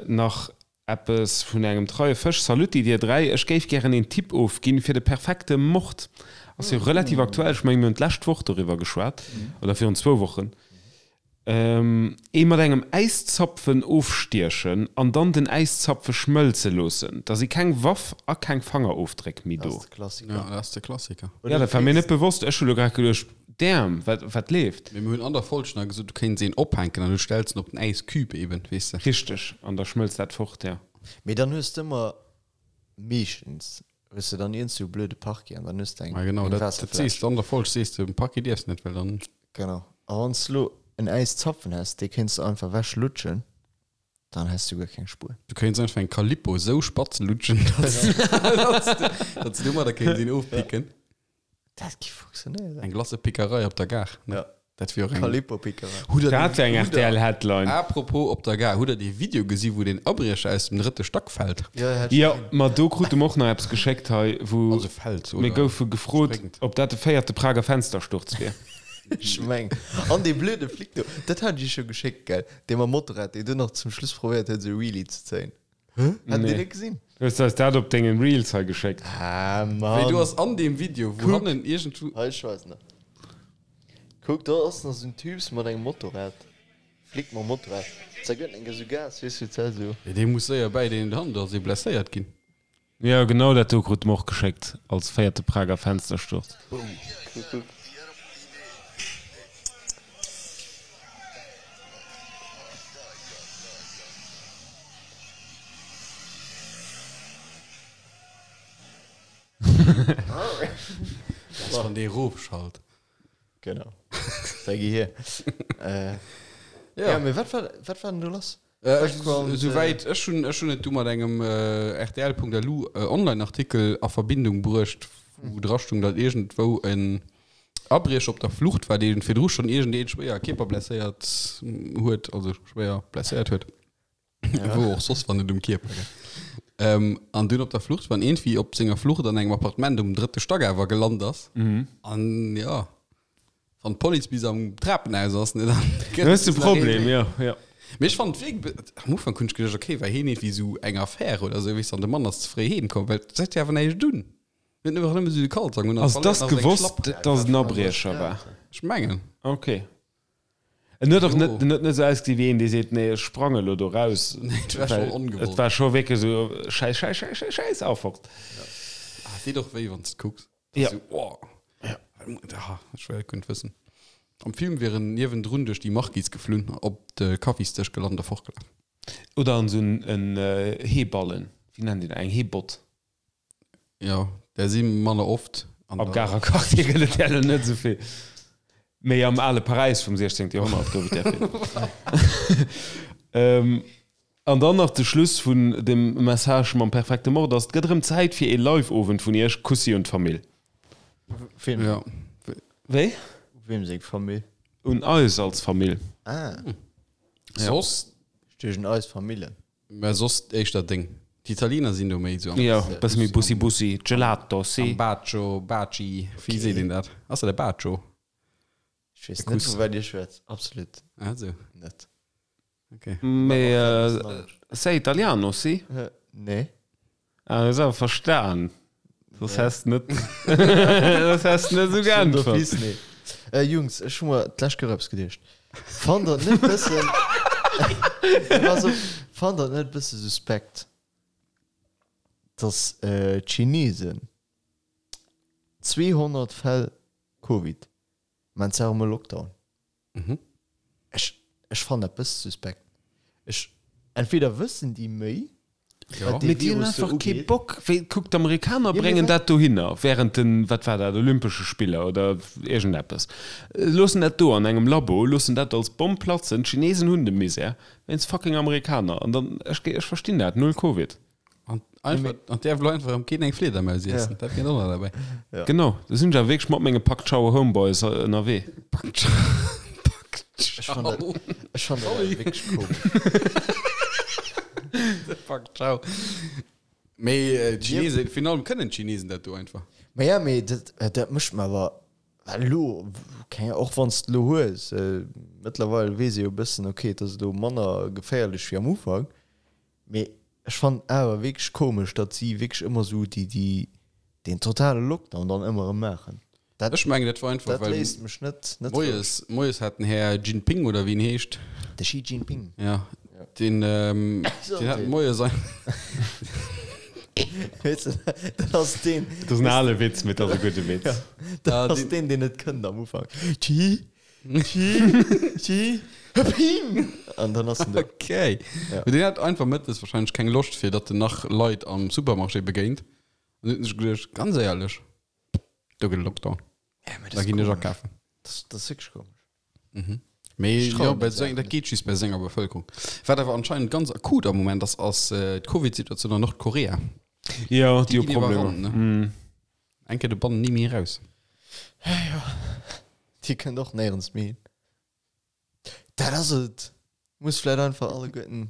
nach eppes vun engem treie Fësch, Salutti dir 3, ech géif gären een Tipp ofginn fir de perfekte Mord. Ass jo relativ aktuell, ech mengen mir hunn d'lescht Woch doriwwer geschwat oder virun zwou Wochen. Ee mat engem Äiszapfen ofstiechen an dann den Äiszapfe schmëlze loossen. Da si keng Waff a keng Fangerofdréck méi Dat do. ass de Klassiker. Ja, dat ass de Klassiker. Ja, dat war mir net bewosst. Ech hu lo grad geduecht, damn, wat, wat leeft? Mee mir hunn an der Folg nach gesot, du kéints een ophänken an du stells en op den Äiscube eben, weess de. Richteg, an da schmëlzt dat fort, ja. Mee dann hues de ëmmer meeschtens hues de dann iergend sou e blöde Parquet an dann hues de eng Ma genau, eng dat, dat sees Waasserfläsch. de an der Folg, sees de, um Parquet dierfs net, well dann. Genau. A wann s de lo en Äiszapfen häss, dee kéints de einfach ewech lutschen, dann häss du guer keng Spuer. Du kéints einfach eng Calippo sou spatz lutschen, dass, dass de, dass de domadder kéints een ofpicken. Dat gi funktionéieren. Eng Glacëpickerei op der Gare, ne? Ja. Dat wier och eng. Calippo-Pickerei. Hutt der Dat dee, wär eng hutt der, RTL-Headline. apropos op der Gare, hutt der dee Video gesi wou deen Abriecher aus dem drëtte Stack fält? Jo, hat ech Jo, gesinn. ma do krute mer och nach eppes geschéckt hei, wou Also fält mir oder goufe gefrot, spréngt. ob dat de véierte Prager Fenstersturz wier. Ech meng. An dee blöde Flic do, dat hat ech iech jo geschéckt, gell? Dee mam Motorrad, dee dunn nach zum Schluss probéiert huet, esou e Wheelie ze zéien. Hat Dir Nee. net gesinn? Hues du eis dat op dengen Reels hei geschéckt? Ah, Wéi Mann. do ass an deem Video, wou Kuck. hannen iergendwou. Hei, ech weisen der. Kuck, do ass nach esou en Typs mat engem Motorrad. Flic mam Motorrad. Da gëtt en esou Gas, weess du, d'Zell esou. Jo, dee muss séier bäi deen hannen, do ass ee blesséiert ginn. Jo, genau dat do krute mer och geschéckt als véierte Prager Fenstersturz. Boom. Kuck, kuck. Dat ass wann dee rofschalt. Genau. Da gi hier. Äh, Ja. ja, mee wat war, wat war denn do lass? Äh, ech, Background, souwäit ech hunn, ech hunn et du mat engem äh, rtl.lu äh, Online-Artikel a Verbindung bruecht, wou dra stung, datt iergendwou en Abriecher op der Flucht war, dee virdru schonn iergendeen schwéier kierperblesséiert huet, also schwéier blesséiert huet. Ja. Wou och soss, wann net um Kierper, gell. Ähm, an dunn op der Flucht war, an iergendwéi op senger Flucht an engem Appartement um drëtte Stack awer gelant ass. An ja, wann d'Police bis am Trapenhaus ass, ne, dann gëtt Du hues de et nach een Problem, Méi. jo, jo. Mee ech fand wierk, am Ufank hunn ech geduecht, okay, war hien iergendwéi esou eng Affär oder esou, weess, an de Mann ass ze fréi heem komm, well et huet jo awer näischt un. Hien huet einfach nëmme esou de Kalzong un an Also, et verléiert ass nach seng gewosst, Schlapp. dass et en Abriecher war? Ech mengen. Okay. En huet och Jo. net, en huet net esou ausgesinn wéi een, dee seet, nee, ech sprange elo do raus. Nee, et war Well schonn ongewollt. Et war scho wierklech esou, Schäiss, Schäiss, Schäiss, Schäiss, Schäiss, a fort. Ah, et deet och wéi, wann s de et kucks. Ja. Esou, oh. Ah, ech well et guer net wëssen. Am Film wier en niewendrun duerch déi Marquise geflunn, op de Kaffisdësch gelant a fortgelaf. Oder an esou en Heeballen, wéi nennt een dat, eng Heebott. Jo, där si manner oft. An Am Garer Quartier gëtt et där elo net esou vill. Mee am ale Paräis vum 16. Joerhonnert gouf et där vill. An dann nach de Schluss vun dem Message mam perfekte Mord ass, Et gëtt erëm Zäit fir ee Live-Owend vun Iech. Kussi un d'Famill. Wem? Ja. Wéi? Wem seng Famill? Un eis als Famill. Ah. Soss? Ech duecht un eis Famillen. Mä soss éischter deng. D'Italiener sinn do méi esou am. Jo, bësse méi Bussi Bussi, Gelato, si. Am Bacio, Baci, wéi seet een dat? Ass dat e Bacio? Ech weess net, vu wat Dir schwätzt. Absolut net. Okay. Mee sei italiano, si? Nee. Ah, hues awer verstan. Soss häss net, soss häss net esou geäntwert. Nee. Äh, Jungs, ech hu mer d'lescht Kéier eppes geduecht. Fannt der et net bëssen, pass op, fannt der et net bësse suspekt, dass d'Chinesen 200 Fäll Covid, mä zwar am Lockdown, Mhm. Ech, ech fannen dat bësse suspekt. Ech, entweder wëssen déi méi, Ja. wat dee Mee déi hunn Virus do einfach kee ugeet. Bock. Wéi, kuck, d'Amerikaner Ja, mee bréngen wat? dat dohinner während den, wat war dat, Olympesche Spiller oder iergendeppes. Loossen dat do an engem Labo, loossen dat als Bomm platzen. D'Chinesen hunn de Misär wéinst fucking Amerikaner. An dann, ech, ech verstinn dat, null Covid. An einfach, an däerf elo einfach erëm keen eng Fliedermaus iessen. Ja. Dat kënnt och nach derbäi. Ja. Genau, do sinn ech awer wierklech mat menge Pak Ciao Homeboys ënnerwee. Pak Ciao. Pak Ech fann dat, Ciao. ech fann dat awer Sorry. wierklech komesch. Pak Ciao. Mee äh, d'Chinesen, virun allem kënnen d'Chinesen dat do einfach. Ma ja, mee dat, dat mécht mer awer well elo, keng, och wann s de elo hues, äh, mëttlerweil weess ee jo e bëssen, okay, et ass elo manner geféierlech wéi am Ufank, Mee ech fannen awer wierklech komesch, datt si wierklech ëmmer esou déi, déi, deen totale Lockdown dann ëmmer erëm maachen. Dat, Ech mengen, dat war einfach, dat well léisst mech net, net roueg. moies, moies hat den Här Jinping, oder wéi en heescht, De Xi Jinping. ja, deen, ähm, deen hat moies ein. Weess de, dat ass deen. Dat ass en ale Witz, mee dat ass e gudde Witz. Dat ass deen, deen net kënnt am Ufank. Xi. Xi, Ping! An dann ass en do. Okay. Ja. Mee deen hat einfach mëttes wahrscheinlech keng Loscht, fir datt en nach Leit am Supermarché begéint. An huet sech geduecht, ganz éierlech, do gëtt e Lockdown. Ja, mee Da dat ass ginn ech komesch. akafen. Dat ass wierklech komesch. Mee Ech jo, trauen bei der seng, Saach dat net. geet just bei senger Bevëlkerung. Wat awer anscheinend ganz akut am Moment ass, ass d'Covid-Situatioun an Nordkorea. Jo, déi Déi hu ginn Problemer. iwwerrannt, ne? Eng Kéier de Bann ni méi eraus. Jo, déi kënnt och néierens méi hin. Dat ass et. Muss vläit einfach alleguerten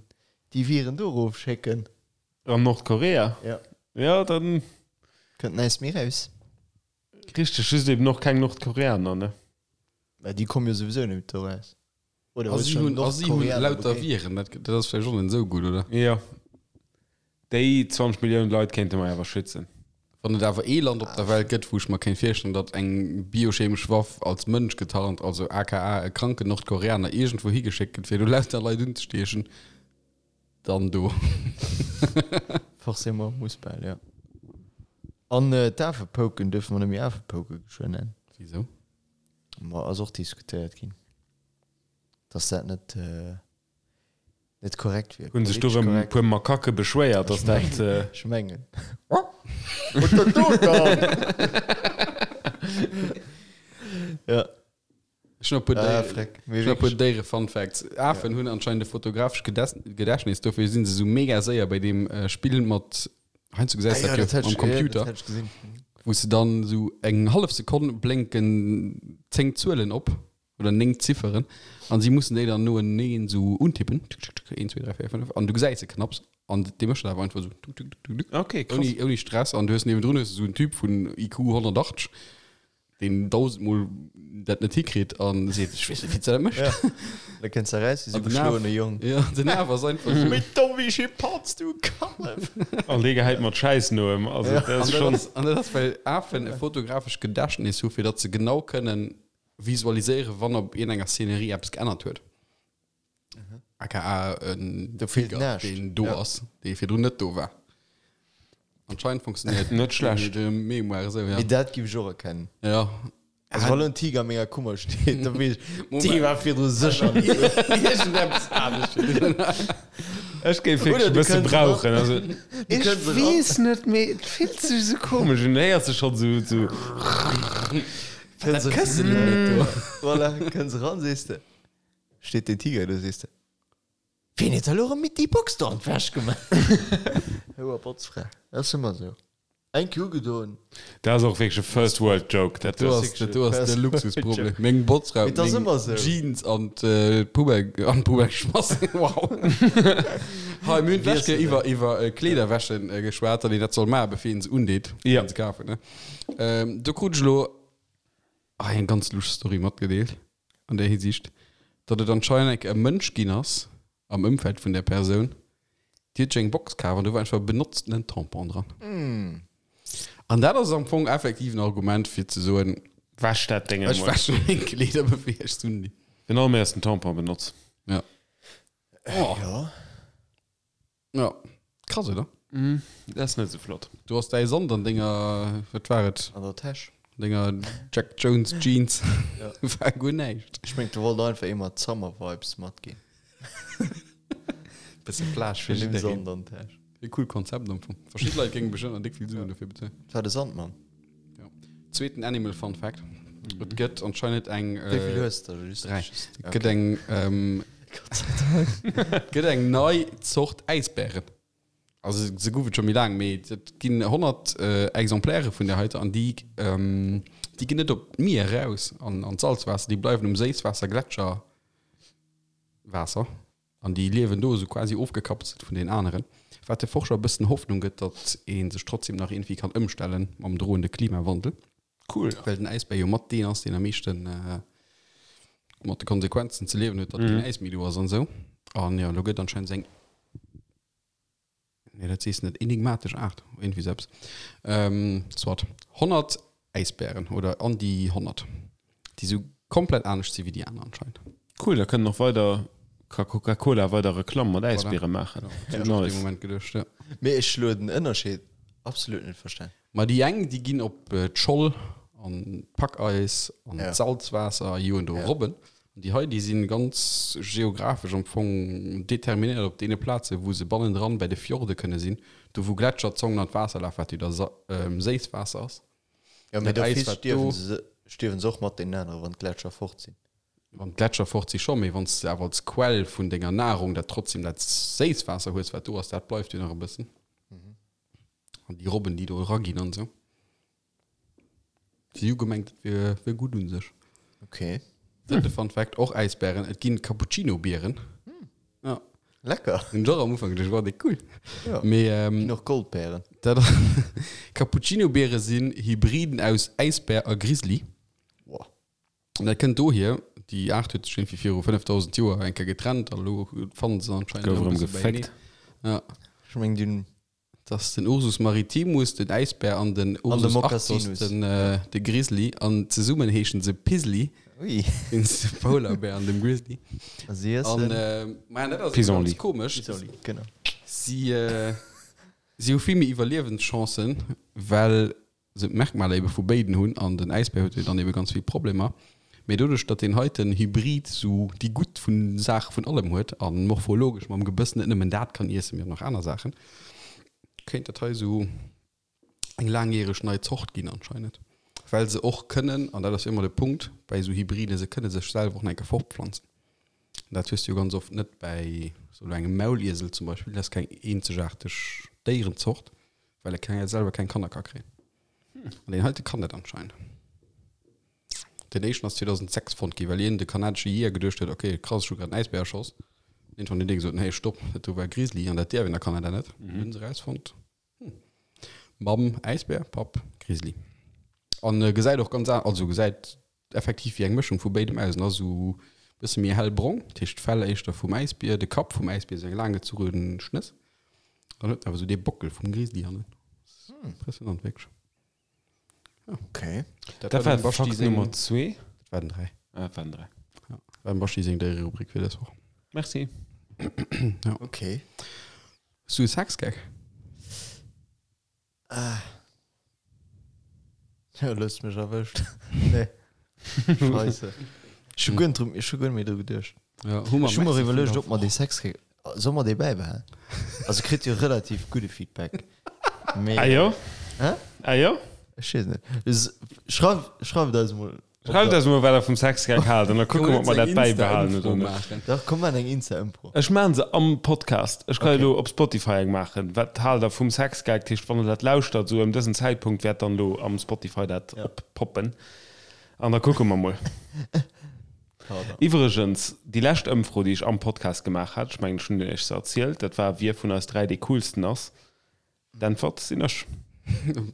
déi Viren do erof schécken. An Nordkorea? Ja. Ja, dann. Kënnt näischt méi raus. Richteg, just eben och keng Nordkoreaner, ne? Mä déi komme jo souwisou net do raus. Oder A hues si schon hunn, a si hunn Nordkoreaner lauter begéint? Viren, dat, dat ass vläicht och net esou gutt, oder? Jo. Déi 20 Milliounen Leit kéinte mer awer schützen. Wann et awer ee Land op der Welt gëtt, wou ech mer kéint virstellen, datt eng biochemesch Waff als Mënsch getarnt, also aka e kranken Nordkoreaner, iergendwou higeschéckt gëtt, fir do lauter Leit unzestiechen, dann do. Forcément, muss bal, jo. An d'Afepouken duerfe mer net méi Afepouke geschwënn nennen. Wisou? Ma ass och diskutéiert ginn, dass dat net net korrekt wier. Hunn sech do rëm e puer Makake beschwéiert, dass dat. Ech mengen. Ja. Ech hunn e puer Ah, Déieren, freck. ech hunn e puer Déiere-Fun-Facts. Afen hunn anscheinend e fotografescht Gedächtnis, dofir si se esou mega séier bei deem Spill mat, heiansdo gesäis Ah, de dat jo am Computer, wou s de dann esou eng hallef Sekonn blénken 10 Zuelen op oder 9 Zifferen an si mussen déi dann noeneen esou untippen, tuk, tuk, tuk, 1, 2, 3, 4, 5, an du gesäis se knapps an dee mécht dat awer einfach esou tuk, tuk, tuk, tuk, tuk, Okay, krass. ouni, ouni Stress an du hues niewendrun hues du esou en Typ vun IQ 180, deen dausendmol dat net hikritt an seet, ech weess net, wéi s de dat méchs. Ja. Da kënns de raus wéi sou An den geschloene Af, Jong. ja, den Af ass einfach esou. Méi domm wéi Schimpanz, du Kallef! An dee gehäit mat Schäiss no em. Also dat An ass dat schonn. ass, an dat ass, well Afen e fotografescht Gedächtnis hu fir datt se genau kënnen visualiséieren, wann op iergendenger Szenerie eppes geännert huet. Aka en Do feelt Tiger, näischt. deen do Ja. ass, dee virdrun net do war. Anscheinend funktionéiert Net schlecht. de Mémoire esou, ja. Mee dat giff ech och erkennen. Ja. Also wann lo en Tiger a menger Kummer steet, da weess ech, Moment. dee war virdru sécher net do. Iergendeppes anescht. Ech géif wierklech Oder e du bësse kënns brauchen. Also, Du ech kënns eran. weess net, mee et fillt sech esou komesch un. Héiers de schonn esou, esou. Kënns Dat Këssen elo net do. Voilà, kënns eran, sees de, steet deen Tiger do, sees de, Wien huet da lo erëm mit déi Box do an d'Wäsch gemaach? Houer Botzfra, dat ass ëmmer esou. Eng Kéier ugedoen. Dat ass och wierklech e First World Joke. Dat Do ass ass, dat do ass de Luxusproblem. Meng Botzfra Mee huet dat ass meng ëmmer esou. Jeans an d'Poubelle, an d'Poubelle geschmass. Wow. Hei, mir hunn d'lescht Kéier iwwer, iwwer Kleederwäschen geschwat, datt een dat soll maachen, bevir een se undeet, fir se kafen, ne? Do krut ech elo hei eng ganz lusch Story matgedeelt an där Hisiicht, datt et anscheinend eng Kéier e Mënsch ginn ass am Ëmfeld vun där Persoun, déi huet sech eng Box kaf an do war einfach e benotztenen Tampon dran. An dat ass am Fong effektiv en Argument fir ze soen, Wäsch dat Déng ech emol. wäsche meng Kleeder bevir ech se undinn. Den allermeisten Tampon benotz. Ja. Oh. Ja. Ja. Krass, oder? Mm, dat ass net esou flott. Du hast däi Sand an denger, wat war et? An der Täsch. Denger Jack Jones Jeans. Ja. War guer näischt. Ech meng, du wollt einfach ee mat Summer Vibes matginn. Bësse Plage fir Nimm jiddereen. Sand an d'Täsch. E cool Konzept am Fong. Verschidde Leit géinge bestëmmt nach déck vill Suen dofir bezuelen. Dat war de Sandmann. Ja. Zweeten Animal Fun Fact. Et gëtt anscheinend eng. Wéi vill hues de? Just, Dräi. just, Et gëtt eng. Ähm, Gott sei Dank. et gëtt eng nei Zort Äisbären. Also se gouf et scho méi laang, mee et ginn 100 Exemplaire vun där heiter an déi, ähm, déi ginn net op d'Mier eraus an, an d'Salzwaasser, déi bleiwen um Séisswaasser, Gletscherwaasser. An déi liewen do esou quasi ofgekapselt vun den aneren, wat de Forscher e bëssen Hoffnung gëtt, datt ee sech trotzdem nach iergendwéi kann ëmstelle mam droende Klimawandel. Cool. Well den Äisbär jo mat deen ass, deen am meeschte mat de Konsequenzen ze liewen huet, datt keen Äis méi do ass an esou. An jo, elo gëtt anscheinend esou eng. Nee, dat sees net. Enigmatesch Aart, iergendwéi sou eppes. Ähm, soit. 100 Äisbären oder an déi 100, déi sou komplett anescht si wéi déi aner anscheinend. Cool, da kënnen och weider, ka Coca-Cola weider Reklamm mat Äisbiere maachen. Voilà. Hunn ech och dee Moment geduecht, ja. Mee ech elo den Ënnerscheed absolut net verstan. Ma déi eng, déi ginn op d'Scholl an d'Packeis an d'Salzwaasser a joen do Robben. An déi hei, déi si ganz geographesch am Fong determinéiert op deene Plazen, wou se bannendran bei de Fjorde kënne sinn, do wou Gletscherzongen an d'Waasser lafen, wat jo da Séisswaasser ass. Jo, mee Dat Äis, d'office wat do. stierwen se, stierwen se och mat deenen aneren, wann d'Gletscher fort sinn. Wann d'Gletscher fort si scho, mee wann s de awer als Quell vun denger Nahrung dat trotzdem dat Séisswaasser hues, wat do ass, dat bleift jo nach e bëssen. An déi Robben, déi do eraginn an esou. Si hu gemengt, et wier, wier gutt un sech. Okay. Drëtte Fun Fact, och Äisbären, et ginn Cappuccino-Bieren. Ja. Lecker. Hunn ech och am Ufank geduecht, wow, déi cool. Ja. Mee, ähm, Ginn och Goldbären. dat Cappuccino-Biere sinn Hybriden aus Äisbär a Grizzly. Wow. An dat kënnt dohier, déi Aart huet sech iergendwéi viru 5000 Joer eng Kéier getrennt a lo fannen se anscheinend Gouf erëm erëm e bësse beienee. geféckt. Ja. Ech meng, déi hunn Dat ass den Ursus maritimus, den Äisbär, an den An de Ursus arctos, Moccasinus. den, de Grizzly. An zesummen heeschen se Pizzly, Ui. wéinst dem Poularbär an dem Grizzly. A si An, iessen. maja, dat ass ganz Pissenlit. komesch. Pissenlit, genau. Si, si hu vill méi Iwwerliewenschancen, well se d'Merkmaler ebe vu béiden hunn an den Äisbär huet jo dann ebe ganz vill Problemer, mee doduerch datt deen heiten Hybrid sou déi gutt vun Saach vun allem huet a morphologesch mam Gebëss net nëmmen dat kann iessen, mee och nach aner Saachen, kéint dat hei sou eng laangjäreg nei Zort ginn anscheinend, well se och kënnen, an dat ass jo ëmmer de Punkt bäi sou Hybriden, se kënne sech selwer och nach eng Kéier fortpflanzen. Dat hues du jo ganz oft net bäi sou elo engem Mauliesel zum Beispill, dat ass keng eenzegaarteg Déierenzort, Well e keng, selwer keng Kanner ka kréien. An deen heite kann dat anscheinend. Den éischten ass 2006 fonnt ginn, well iergend e kanadesche Jeeër geduecht huet, ok, krass, ech hu grad en Äisbär erschoss. Iergendwann huet dee gesot, hey, stopp, dat do war e Grizzly an dat däerf een a Kanada net. Dann hunn se erausfonnt, hm, Mamm Äisbär, Papp Grizzly. An gesäit och ganz, also gesäit effektiv wéi eng Mëschung vu béidem aus en ass esou bësse méi hellbrong, dat heescht d'Fell éischter vum Äisbier, de Kapp vum Äisbier esou eng laanggezuche Schnëss, dann huet en awer esou dee Bockel vum Grizzly hannen. Impressionant wierklech. Ja. Okay. Dat war dem Baschi seng Nummer zwee. Dat war den 3. Ah, dat war den 3. Ja, dat war dem Baschi seng Déiererubrik fir dës Woch. Merci. Ja. Okay. Hues du e Sexgag? Ah. Ja, lo hues du mech erwëscht. Nee. Scheisse. Ech hu guer net dru, ech hu guer net méi dru geduecht. Ja, hu mer Ech hu mer Merci iwwerluecht, vun ob mer dee Sexgag, soll mer dee bäibehalen? Also kritt jo relativ gudde Feedback. Mee. Ah jo? Hä? Ah jo? Ech weess net. Schreif, schreift eis emol. Schreift eis emol, wat der vum Sexgag haalt, an da kucke mer, ob mer dat bäibehalen oder net. Dach, komm, maachen eng Insta-Ëmfro. Ech maachen se am Podcast. Ech ka jo elo op Spotify eng maachen. Wat haalt der vum Sexgag? Dat heescht, wann der dat lauschtert, esou ëm dësen Zäitpunkt wäert dann elo am Spotify dat oppoppen. An da kucke mer mol. Pardon. Iwwregens, déi lescht Ëmfro, déi ech am Podcast gemaach hat, ech mengen, ech hunn Iech se erzielt, dat war, wie vun eis 3 dee coolsten ass. D'Äntwert sinn ech.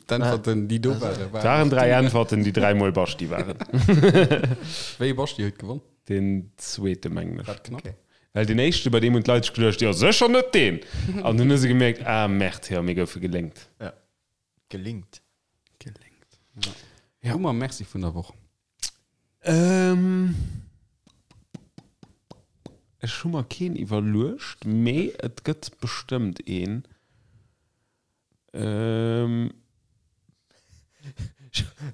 D'Äntwerten, déi do waren, Et waren 3 Äntwerten, déi dräimol Baschti waren. Wéi ee Baschti huet gewonn? Deen zweete, mengen ech. War dat knapp? Okay. Well deen éischte, bei deem hunn d'Leit sech geduecht, jo sécher net deen! An dunn hu se gemierkt, ah Merde, jo, mir goufe gelénkt. Ja. Gelingt. Gelénkt. Ja. Hu mer Merci vun der Woch? Ähm, ech hu mer keen iwwerluecht, mee et gëtt bestëmmt een. Ähm,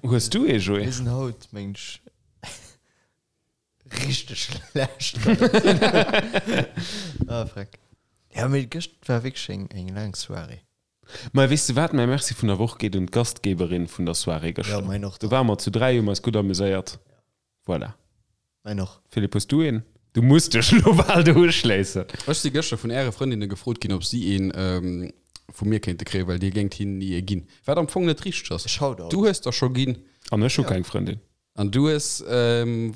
hues du ee, Joé? Mir sinn haut, mengen ech, richteg schlecht. Ah, freck. Ja, mee gëscht war wierklech eng, eng laang Soirée. Mä weess de wat, mäi Merci vun der Woch geet un d'Gastgeberin vun der Soirée Ja, gëschter. mäin och Do dann. ware mer zu 3, hu mer eis gutt amuséiert. Voilà. Mäin och. Philippe, hues du een? Du muss dech elo bal do uschléissen. Ech si gëschter vun äre Frëndinne gefrot ginn, ob si een vu mir kéinte kréien, well dir géingt hinnen ni ee ginn. Wat am Fong net richteg ass. Ech haut alt. Du hues der scho ginn. An ech hu keng Frëndin. An du hues,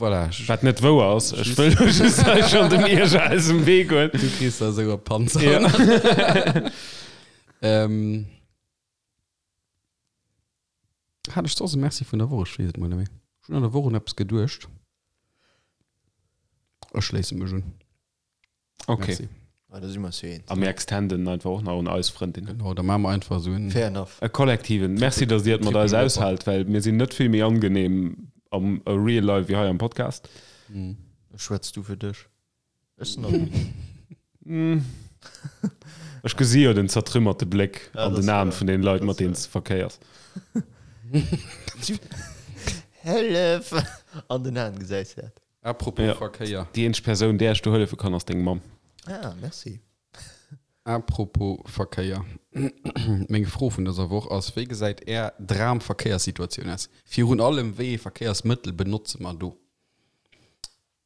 voilà. Wat net wouer ass. Ech wëll lo just hei schonn dem Ierger aus dem Wee goen. Du kriss da esou e Panzer. Ja. Ähm, hat ech soss e Merci vun der Woch? Ech weess et mol net méi. Ech hunn an der Woch un eppes geduecht. Ech schléisse mech un. Okay. Merci. Ah, da si mer eis jo eens. A mir extenden einfach och nach un eis Frëndinnen. Genau, da maache mer einfach esou en. Fair enough. E kollektiven Merci, dass Dir et mat eis Triple aushaalt, well mir sinn net vill méi angenehm am real life wéi hei am Podcast. Schwätz du fir dech. Ech sinn angenehm. Ech gesi jo den zertrümmerte Bléck Ja, an dat den ass Aen wouer. vun den Leit, Dat mat ass deenen s de verkéiers. Hëllef! An den Aen gesäis de dat. Apropos Ja. Verkéier. Déi eenzeg Persoun, där ech do hëllefe kann, ass deng Mamm. Ah, merci. Apropos Verkéier. Meng Fro vun dëser Woch ass, Wéi gesäit Är Dram-Verkéierssituatioun aus? Virun allem, wéi ee Verkéiersmëttel benotze mer do?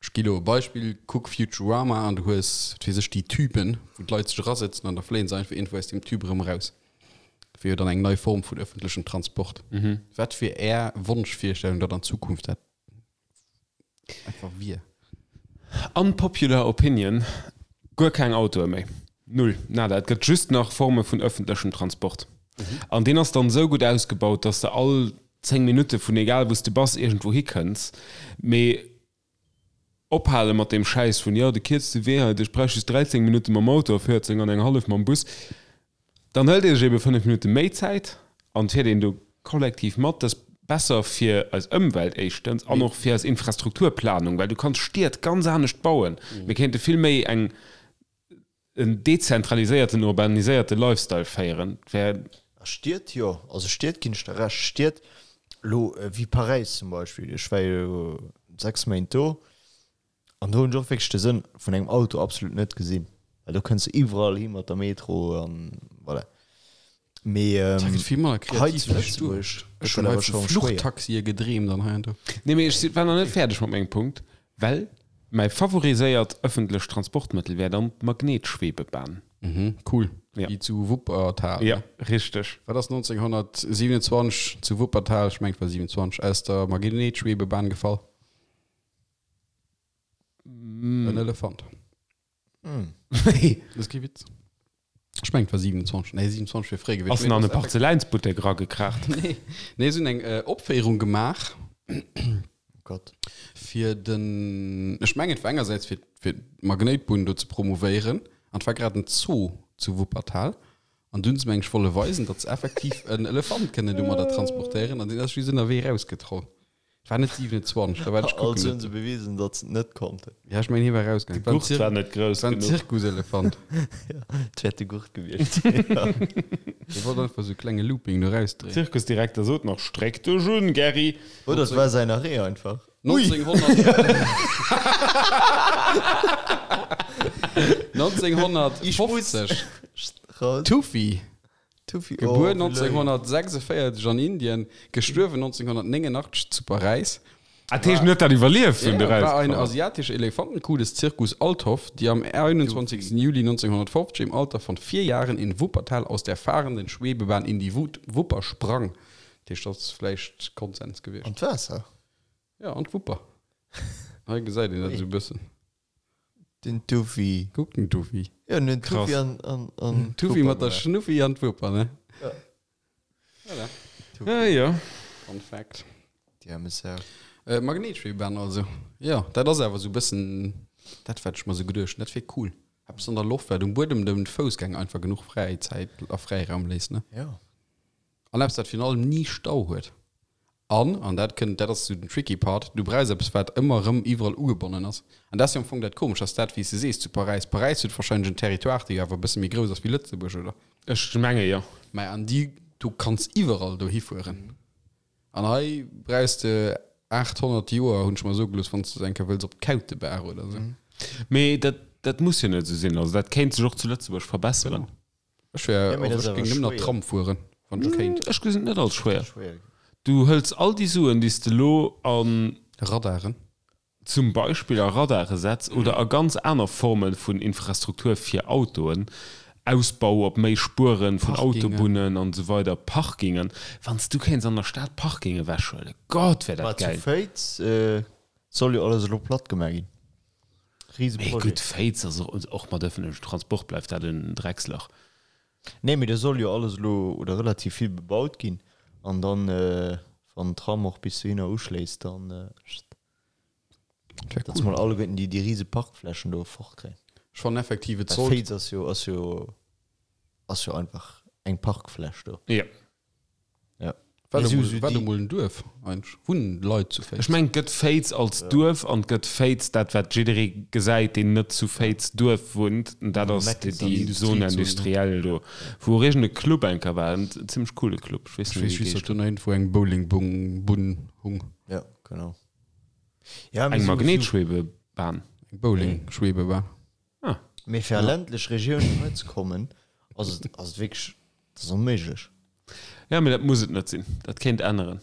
Ech gi lo e Beispill, Kuck Futurama an du hues, wat weess ech, déi Tüben, wou d'Leit sech erasëtzen an da fléien se einfach iergendwou aus deem Tüb erëm eraus. Dat wier jo dann eng nei Form vun ëffentlechem Transport. Wat wier Är Wonschvirstellung, datt an Zukunft dat Einfach wier. Unpopular opinion, Guer keng Autoe méi. Null. Nada. Et gëtt just nach Forme vun ëffentlechem Transport. An deen ass dann esou gutt ausgebaut, dass de all 10 Minutte vun egal wou s de bass iergendwou hikënns. Mee ophale mat deem Schäiss vun, jo, de kierzte Wee hei, ech bräuch just 13 Minutte mam Auto a 14 an eng hallef mam Bus. Dann hëlt ee sech ebe 5 Minutte méi Zäit an fiert een do kollektiv mat. Dat ass besser fir eis Ëmwelt éischtens an och fir eis Infrastrukturplanung, well du kanns Stied ganz anescht bauen. Mir kéinte vill méi eng en dezentraliséierten, urbaniséierte Lifestyle féieren. Et wär. A Stied, jo. Also Stied ginn ech der Recht. Stied elo wéi Paräis zum Beispill, ech war jo 6 Méint do, An do hunn ech och wierklech de Sënn vun engem Auto absolut net gesinn, well do kënns de iwwerall hi mat der Metro an voilà. Mee Da gëtt vill manner hei kreativ zu wéi ech Lëtzebuerg duecht. Ech gëtt hunn dat hei awer vu scho schwéier. Fluchtaxie gedreemt an hei an do. Nee, mee ech war nach net fäerdeg mat mengem Punkt, well mäi favoriséiert ëffentlecht Transportmëttel wär dann d'Magnetschwebebahn. Mhm, cool. Ja. Wéi zu Wuppertal. Ja, richteg. Wat ass 1927 zu Wuppertal, ech mengen et war 27, aus der Magnetschwebebahn gefall? En Elefant. Wéi? Dat ass kee Witz. Ech mengen, et war 27. Nee, 27 wier fréi gewiescht. Ass en an e Parzeläinsbuttek eragekraacht? Nee, nee, se hunn eng Opféierung gemaach. Oh Gott. Fir den, ech mengen, et war engersäits fir, fir d'Magnéitbunn do ze promouvéieren. An et war grad en Zoo zu Wuppertal. An dunn hu se, meng ech, wolle weisen, datt se effektiv en Elefant kënnen domadder transportéieren. An deen ass just ënnerwee erausgetroll. War net 27, da war ech kucken. Also hunn se bewisen, datt se et net konnten. Ja, ech mengen, hie war erausgaangen. De Gurt war net grouss War en genuch. Zirkuselefant. Ja, et wäert de Gurt gewiescht sinn. Hie wollt einfach sou e klenge Looping do rausdréien. Zirkusdirekter sot nach, Stréck dech un, Gerry! Oder et war säin Arrêt einfach. Ui! 1950. Raus. Tuffy. Tuffy, oh, Gebuer wéi léif. 1946 an Indien, gestuerwen 1989 zu Paräis. Ah, dat heescht, en huet dat iwwerlieft, wou en Ja, do war eine rauskomm ass. asiatische Elefantenkuh des Zirkus Althoff, die am 21. Juli 1950 im Alter von vier Jahren in Wuppertal aus der fahrenden Schwebebahn in die Wut Wupper sprang. Dat heescht, dat ass vläicht Konsens gewiescht. An d'Waasser? Ja, an d'Wupper. Hei gesäit een dat esou e bëssen. Den Tufi. Kuck den Tufi. Jo, den Tufi an an an Tufi mat der Schnuffi an d'Wuper, ne? Ja. Voilà. Ja, ja. Fun Fact. Déi aarme Sau. Äh, Magnetschwebebahn also. Jo, dat ass awer esou e bëssen dat, wat ech mer esou geduecht hunn. Dat wier cool. Eppes an der Loft, wat um Buedem dem Foussgänger einfach genuch Fräizäit a Fräiraum léisst, ne? Jo. An eppes, dat virun allem ni Stau huet. An, an dat kënnt, dat ass esou den tricky Part, du brauchs eppes, wat ëmmer erëm iwwerall ugebonnen ass. An dat ass jo am Fong dat Komescht, ass dat, wéi s de sees, zu Paräis. Paräis huet wahrscheinlech en Territoire, dee jo awer e bësse méi grouss ass wéi Lëtzebuerg, oder? Ech menge jo. Mä an déi, du kanns iwwerall dohi fueren. An hei brauchs de 800 Joer, hunn ech mer soe gelooss, wann s de eng Kéier wëlls op d'Kautebaach oder esou. Mee dat, dat muss jo net esou sinn. Also dat kéint sech och zu Lëtzebuerg verbesseren. Genau. Ech wär, Ja, mee also dat ech ass géing awer nëmmen nach schwéier. Tram fueren, wann ech kéint. Ech gesinn et net als schwéier. Schwéier. Du hëls all déi Suen, déi s de elo an. Radaren. Zum Beispill a Radare setz oder a ganz aner Forme vun Infrastruktur fir Autoen, Ausbau op méi Spuere vun Parkingen. Autobunnen an esou weider, Parkingen. Wann s du kéints an der Stad Parkinge ewechhuelen, Gott, wär Ma dat zu gäil. Féiz soll jo alles elo platt gemaach ginn. Mee Riseprojet. gutt, Féiz ass och, och mat ëffentlechem Transport bleift dat en Dreckslach. Nee, mee do soll jo alles elo oder relativ vill bebaut ginn an dann, wann den Tram och bis dohinner uschléisst, dann, Dat wär datt cool. mol alleguerten déi, déi rise Parkflächen do fortkréien. Ech fannen effektiv, et Well sollt. Féiz ass jo, ass jo, ass jo einfach eng Parkfläch do. Jo. Ja. War Mee do sou, mol, sou war do déi. mol en Duerf eigentlech? Wunnen Leit zu Ech Féiz? mengen, et gëtt Féiz als Duerf an et gëtt Féiz, dat wat jidderee gesäit, deen net zu Féiz Duerf wunnt, an dat ass déi Industriezone. Zone industrielle do, wou och iergend e Club eng Kéier war, en zimmlech coole Club, ech weess Ech net méi weess wéi just, e datt do nach iergendwou eng Bowlingbunn hung. Ja, genau. Ja, mee Eng sou, sou. Magnetschwebebahn. Eng Bowling-Schwebebahn. Ah. Mee fir a ländlech Regiounen hei ze kommen, ass et, ass et wierklech, dat ass onméiglech. Ja, mee dat muss et net sinn. Dat kéint änneren.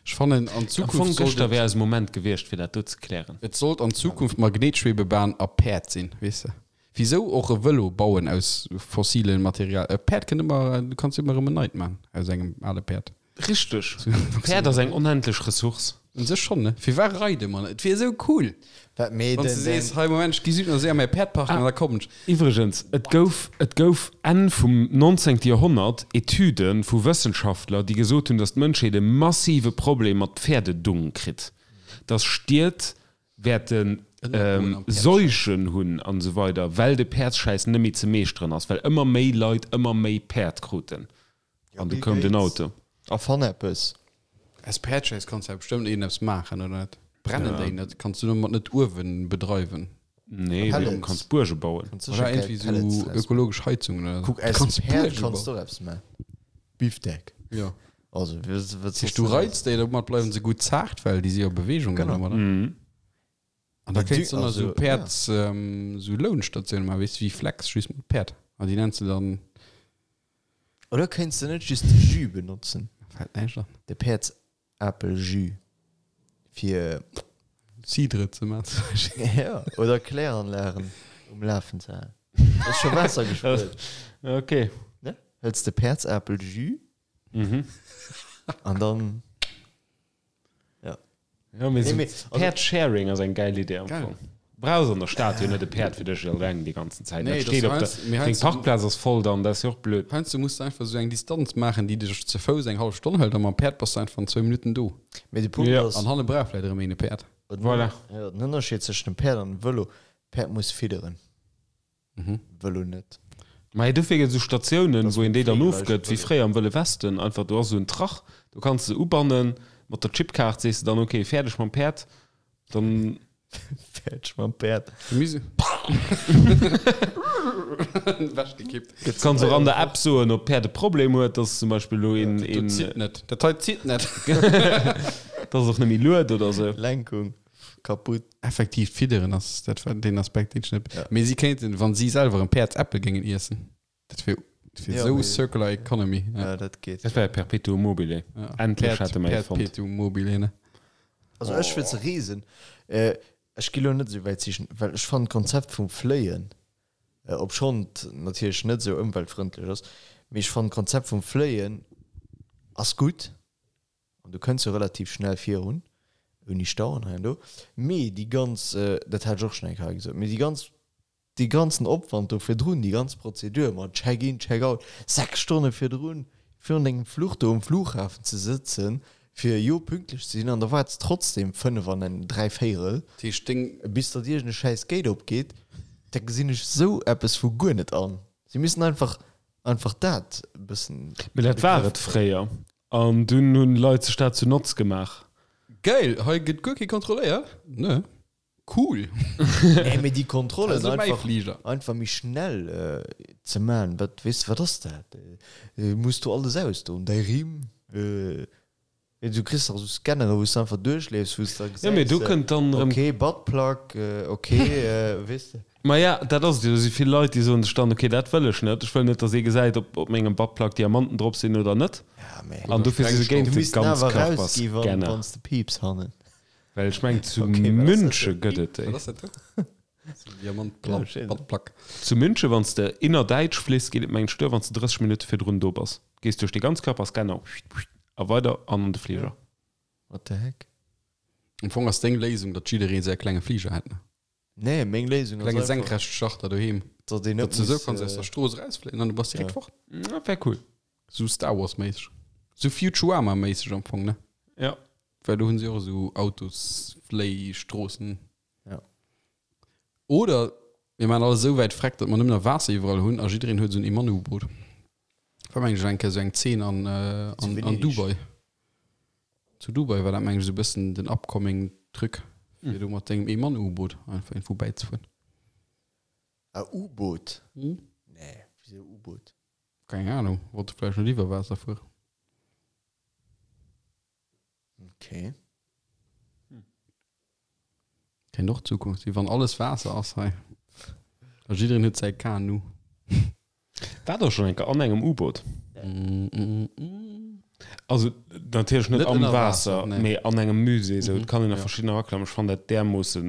Ech fannen, an Am Zukunft Fong sollt gëschter et, wär eise Moment gewiescht, fir dat do ze klären. et sollt an Zukunft Magnetschwebebahn a Päerd sinn, weess de. Wisou och e Vëlo bauen aus fossilen Material? E Päerd kënnt ëmmer, du kanns ëmmer erëm en neit man aus engem ale Päerd. Richteg. Päerd ass eng onendlech Ressource. Un sech schonn, ne? Firwat reide mer net? Et wier esou cool, Wat mee wann s den, de sees, den. hei Moment, ech gi Südnasee a mäi Päerd parken an da kommen ech. Iwwregens, et gouf, et gouf Enn vum 19. Joerhonnert Etüde vu Wëssenschaftler, déi gesot hunn, datt d'Mënschheet e massive Problem mat Pferdedung kritt, datt Stied wäerte Seuchen hunn an esou weider, well de Päerdsschäiss net méi ze meeschteren ass, well ëmmer méi Leit ëmmer méi Päerd kruten. Ja, An du Bill koum den Gates. Auto. Erfann eppes. Aus Päerdschäiss kanns du ja bestëmmt iergendeppes maachen, oder net? Brennen déi net? Kanns du domat net Uewen bedreiwen? Nee, mee du kanns Buerge bauen. Kanns Oder sécher geil iergendwéi Pellets sou draus maachen. ökologesch Heizungen oder sou. Kuck, Du aus kanns Päerd Buerge kanns bauen. du och eppes maachen. Bifdeck. Ja. Also, wat, wat Heescht, soss du denn reiz déi, domat bleiwen se gutt zaart, well déi si jo a Beweegung Genau. dann ëmmer, ne? An da Mee kéints du, du nach sou also, ja. Päerds, sou Lounstatioune maachen, weess du, wéi Flex, just mat Päerd. An déi nenns du dann. Oder kéints de net just de Jus benotzen? Fält näischt an. De Päerdsapel-Jus. Fir. Cidre ze maachen zum Beispill. Ja, oder Kläranlagen um Lafen ze halen. Ass scho Waasser gespuert. Okay. Ne? Hëls de Päerdsapel-Jus Mhm. an dann. Ja, mee Nee, sou mee, also- Päerd-Sharing ass eng geil Idee am Geil. Fong. Brauchs an der Stad jo net e Päerd fir dech eleng déi ganzen Zäit. Nee, Dat das steet op der, heiansdo- mee deng heiansdo- Parkplaz ass voll dann, dat ass jo och blöd. Heiansdo muss de einfach sou eng Distanz maachen, déi dech ze Fouss eng hallef Stonn hëlt, a mam Päerd bass de einfach an zwou Minutten do. Mee de Punkt Ja. ass, An hanne brauch vläit erëm een e Päerd. den, Voilà. ja, den Ënnerscheed zwëschen dem Päerd an dem Vëlo, Päerd muss fidderen, Mhm. Vëlo net. Mä dofir gëtt et esou Statiounen, Das wou een déi dann fliegen ofgëtt, wéi leicht fréier am Wëlle Westen. Einfach, do ass esou en Trach, do kanns de se ubannen, mat der Chipkaart sees de dann, okay, fäerdeg mam Päerd, dann. Fäerdeg mam Päerd. Gemüse. Ewechgekippt. Kanns och an der App soen, ob d'Päerd e Problem huet, dass zum Beispill elo een, Dat een, zitt net. Dat hei zitt net. dass och net méi lued oder esou. Lenkung kaputt. Effektiv, d'Fidderen ass dat war deen Aspekt, deen ech net. Ja. Mee si kéinten, wann si selwer en Päerdsäppel géingen iessen, dat wier dat wier Ja, esou mee- Circular Economy. Ja. Ja, dat geet. Dat war Perpetuum mobile. Ja. Endlech Päerd- hate mer ee fonnt. Perpetuum mobile, ne? Also ech fir ze reesen, äh, ech gi lo net esou wäit sichen, well ech fannen d'Konzept vum Fléien, äh, obschonn et natierlech net esou ëmweltfrëndlech ass, mee ech fannen d'Konzept vum Fléien ass gutt an du kënns jo relativ schnell virun. Ouni Stau an hei an do. Mee déi ganz, dat hat ech och schonn eng Kéier hei gesot, mee déi ganz, dee ganzen Opwand do virdrun, déi ganz Prozedur mat Check-in, Check-out, 6 Stonne virdrun, virun dengem Fluch do um Flughafen ze sëtzen, fir jo pünktlech ze sinn, an da waarts trotzdem 5 an en dräivéierel, Dat heescht, deng. bis datt iergend e schäiss Gate opgeet, da gesinn ech sou eppes vu guer net an. Si missten einfach, einfach dat e bëssen. Mee dat war et fréier. An dunn hunn Leit sech dat zu Notz gemaach. Geil, hei gëtt guer kee kontrolléiert, ne? Cool! Nee, mee déi Kontrollen Dat ass mäi einfach, Fliger. einfach méi schnell ze man, wat, weess de, wat ass dat? Muss du alles ausdoen, däi Rimm, du kriss dach esou Scannere wou s de einfach duerchleefs, wou s de da Jo, mee gesäis, do kënnt dann erëm. okay, Buttplug, ok, weess de. Maja, dat ass et jo. Do si vill Leit, déi soen sech dann, ok, dat wëll ech net. Ech wëll net, datt ee gesäit, ob op mengem Buttplug Diamanten drop sinn oder net. Ja, mee An dofir si se géint du de misst en awer rausgi wann, Ganzkörperscanner. wann s de piips hannen. Well ech mengen, zu Ok, wat ass dat Münche do? gëtt et déi. Wat ass dat do? Sou Ja, Diamant-Plug, ech weess net. Buttplug. Zu Münche, wann s de innerdäitsch fliss, geet et mengen ech duer, wann s de 30 Minutte virdrun do bass. Gees duerch de Ganzkörperscanner a weider an an de Fliger. What the heck? Am Fong ass deng Léisung, datt jidderee säi klenge Fliger hätt, ne? Nee, meng Léisung ass Klenge einfach, Senkrechtstarter doheem. datt een net Datt du sou muss, kanns aus der Strooss erausfléien an du bass direkt Ja. fort. Dat wär cool. Sou Star Wars méisseg. Sou Futurama méisseg am Fong, ne? Ja. Well do hunn se och esou Autosfléistroossen. Ja. Oder mir maachen alles esou wäit freck, datt mer nëmmen nach Waasser iwwerall hunn a jiddereen huet esou en Eman-U-Boot. War meng ech eng Kéier sou eng Zeen an, an, an Venedeg. Dubai. Zu Dubai war dat meng ech esou e bëssen den upcoming Truc, fir do mat dengem Eemann-U-Boot einfach iergendwou bäizefueren. Ah, U-Boot? Nee, wisou U-Boot? Keng Ahnung, wollte vläicht net iwwer Waasser fueren. Okay. Kéint och d'Zukunft sinn, wann alles Waasser ass hei. A jiddereen huet säi Kanu. War der schonn eng Kéier an engem U-Boot? Also natierlech net Net am ënner Waasser, Waasser, nee. mee an engem Musée esou. Et kann een a ja. verschiddener eraklammen. Ech fannen dat därmoosse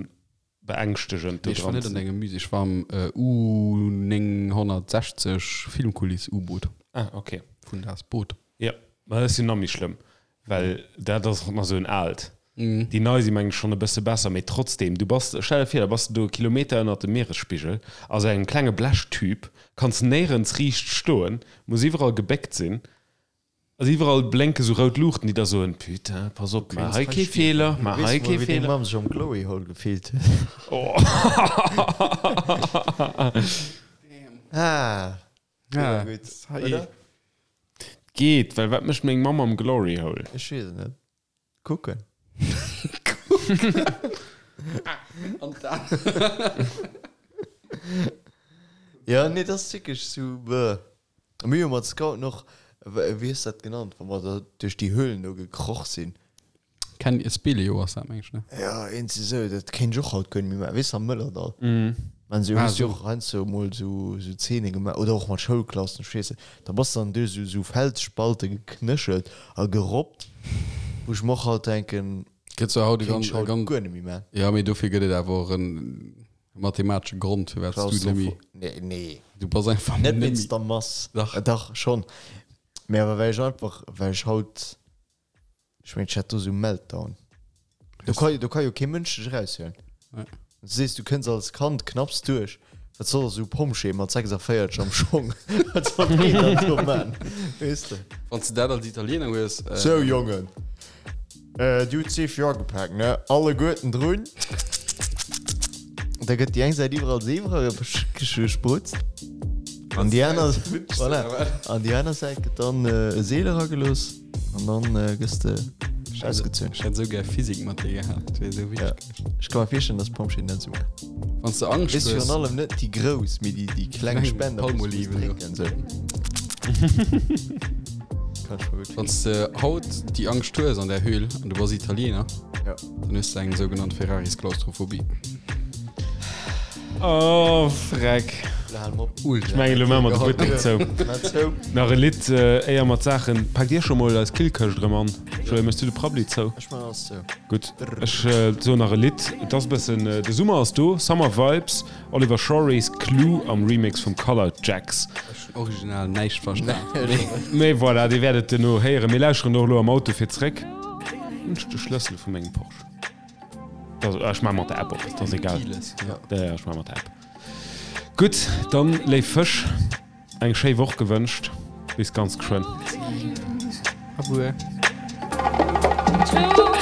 beängschtegend do Nee, ech war dran net an ze. engem Musée, ech war am U 960 Filmkuliss-U-Boot. Ah, okay. Vun Das Boot. Jo, ma dat ass jo nach méi schlëmm, well dat ass och nach esou en aalt. Déi nei si mengen ech schonn e bësse besser, mee trotzdem, du bass, stell der vir, da bass de do e Kilometer ënnert dem Mieresspigel a sou engem klenge Blechtüb, kanns néirens riicht stoen, muss iwwerall gebéckt sinn, also iwwerall blénke sou rout Luuchten, déi der soen, Putain, pass op, maach hei kee Feeler, maach hei Weess kee mol, wéi deng Feeler. Mamm sech am Glory Hole gefillt huet. Ah, Ja, gutt, hei. oder? Geet, well wat mécht meng Mamm am Glory Hole? Ech weess et net. Kucken. An dann. Ja, nee, dat ass wierklech sou, bäh. A mir hu mat Scouten och, wéi hues dat genannt, wa mer da duerch déi Höhlen do gekroch sinn? Ken, Speleo ass dat, meng ech, ne? Ja, iergendwéi sou, dat kéint ech och haut guer net méi maachen. Weess de, am Mëllerdall. Maan se, Ah, hues du sou. och heiansdo mol sou, sou Zeene gemaach, oder och mat Schoulklassen, ech weess net. Da bass de dann duerch sou, sou Felsspallte geknéchelt a gerobbt, wou ech mer och haut denken, Gëtt zwar haut e kéint ganz, ech haut ganz, guer net méi maachen. ja, mee dofir gëtt et awer och en mathematesche Grond, firwat s du net méi, Claustropho, nee, nee. du bass einfach Net net méi. wéinst der Mass. Dach. Dach, schonn. Mee awer well ech einfach, well ech haut. Ech mengen, ech hätt do sou Meltdown. Do ka, do ka jo kee Mënsch dech eraushuelen. Nee. Du sees, du kënns als Kand knapps duerch. Wat soll esou Pompjee mat 46 am Schong? Wat soll deen dann do man? Weess de? Wann s de dat als Italiener hues. Äh, Sou, Jongen, äh, dir hutt d'Seef jo agepaakt, ne? Alleguerten drun. Da gëtt déi eng Säit iwwerall Seef eragesprutzt. An déi aner, voilà. An déi aner Säit gëtt dann e Seel eragelooss. An dann gëss de ausgezunn. Ech hätt esou gär Physik mat dir gehat, dat wier esou Ja. witzeg gewiescht. Ech ka mer virstellen, dass d'Pompjeeën dat esou maachen. Wann s de Angscht Weess hues. virun allem net déi grouss, mee déi, déi kleng Kleng Spender, wou s du musst Palmoliven, jo. drénken, esou. Kann ech mer gutt Wann s de haut déi Angscht hues an der Höhl an du bass Italiener, Ja. dann hues de eng sougenannt Ferraris-Klaustrophobie. Oh, freck. Ultra. Ech mengen, elo maache mer de Buttek zou. Nach e Lidd, éier mer d'Saachen. Paakt Dir scho mol eis Killkëscht erëm an? Joé, méchs du de Prabbeli zou? Ech maachen alles zou. Gutt, ech soen nach e Lidd. Et ass e bëssen, de Summer ass do, Summer Vibes, Oliver Schories, Clue am Remix vum Colour Jacks. Ech hunn original näischt verstan. Mee voilà, Dir wäert et duerno héieren. Mir lauschteren och elo am Auto fir zréck. Hunn ech de Schlëssel vu mengem Porsche? Ech maache mat der App op, dat ass egal. Ja, ja, ech maache mat der App. Gutt, dann, léif Fësch, eng schéi Woch gewënscht. Bis ganz geschwënn. Abuer. Two.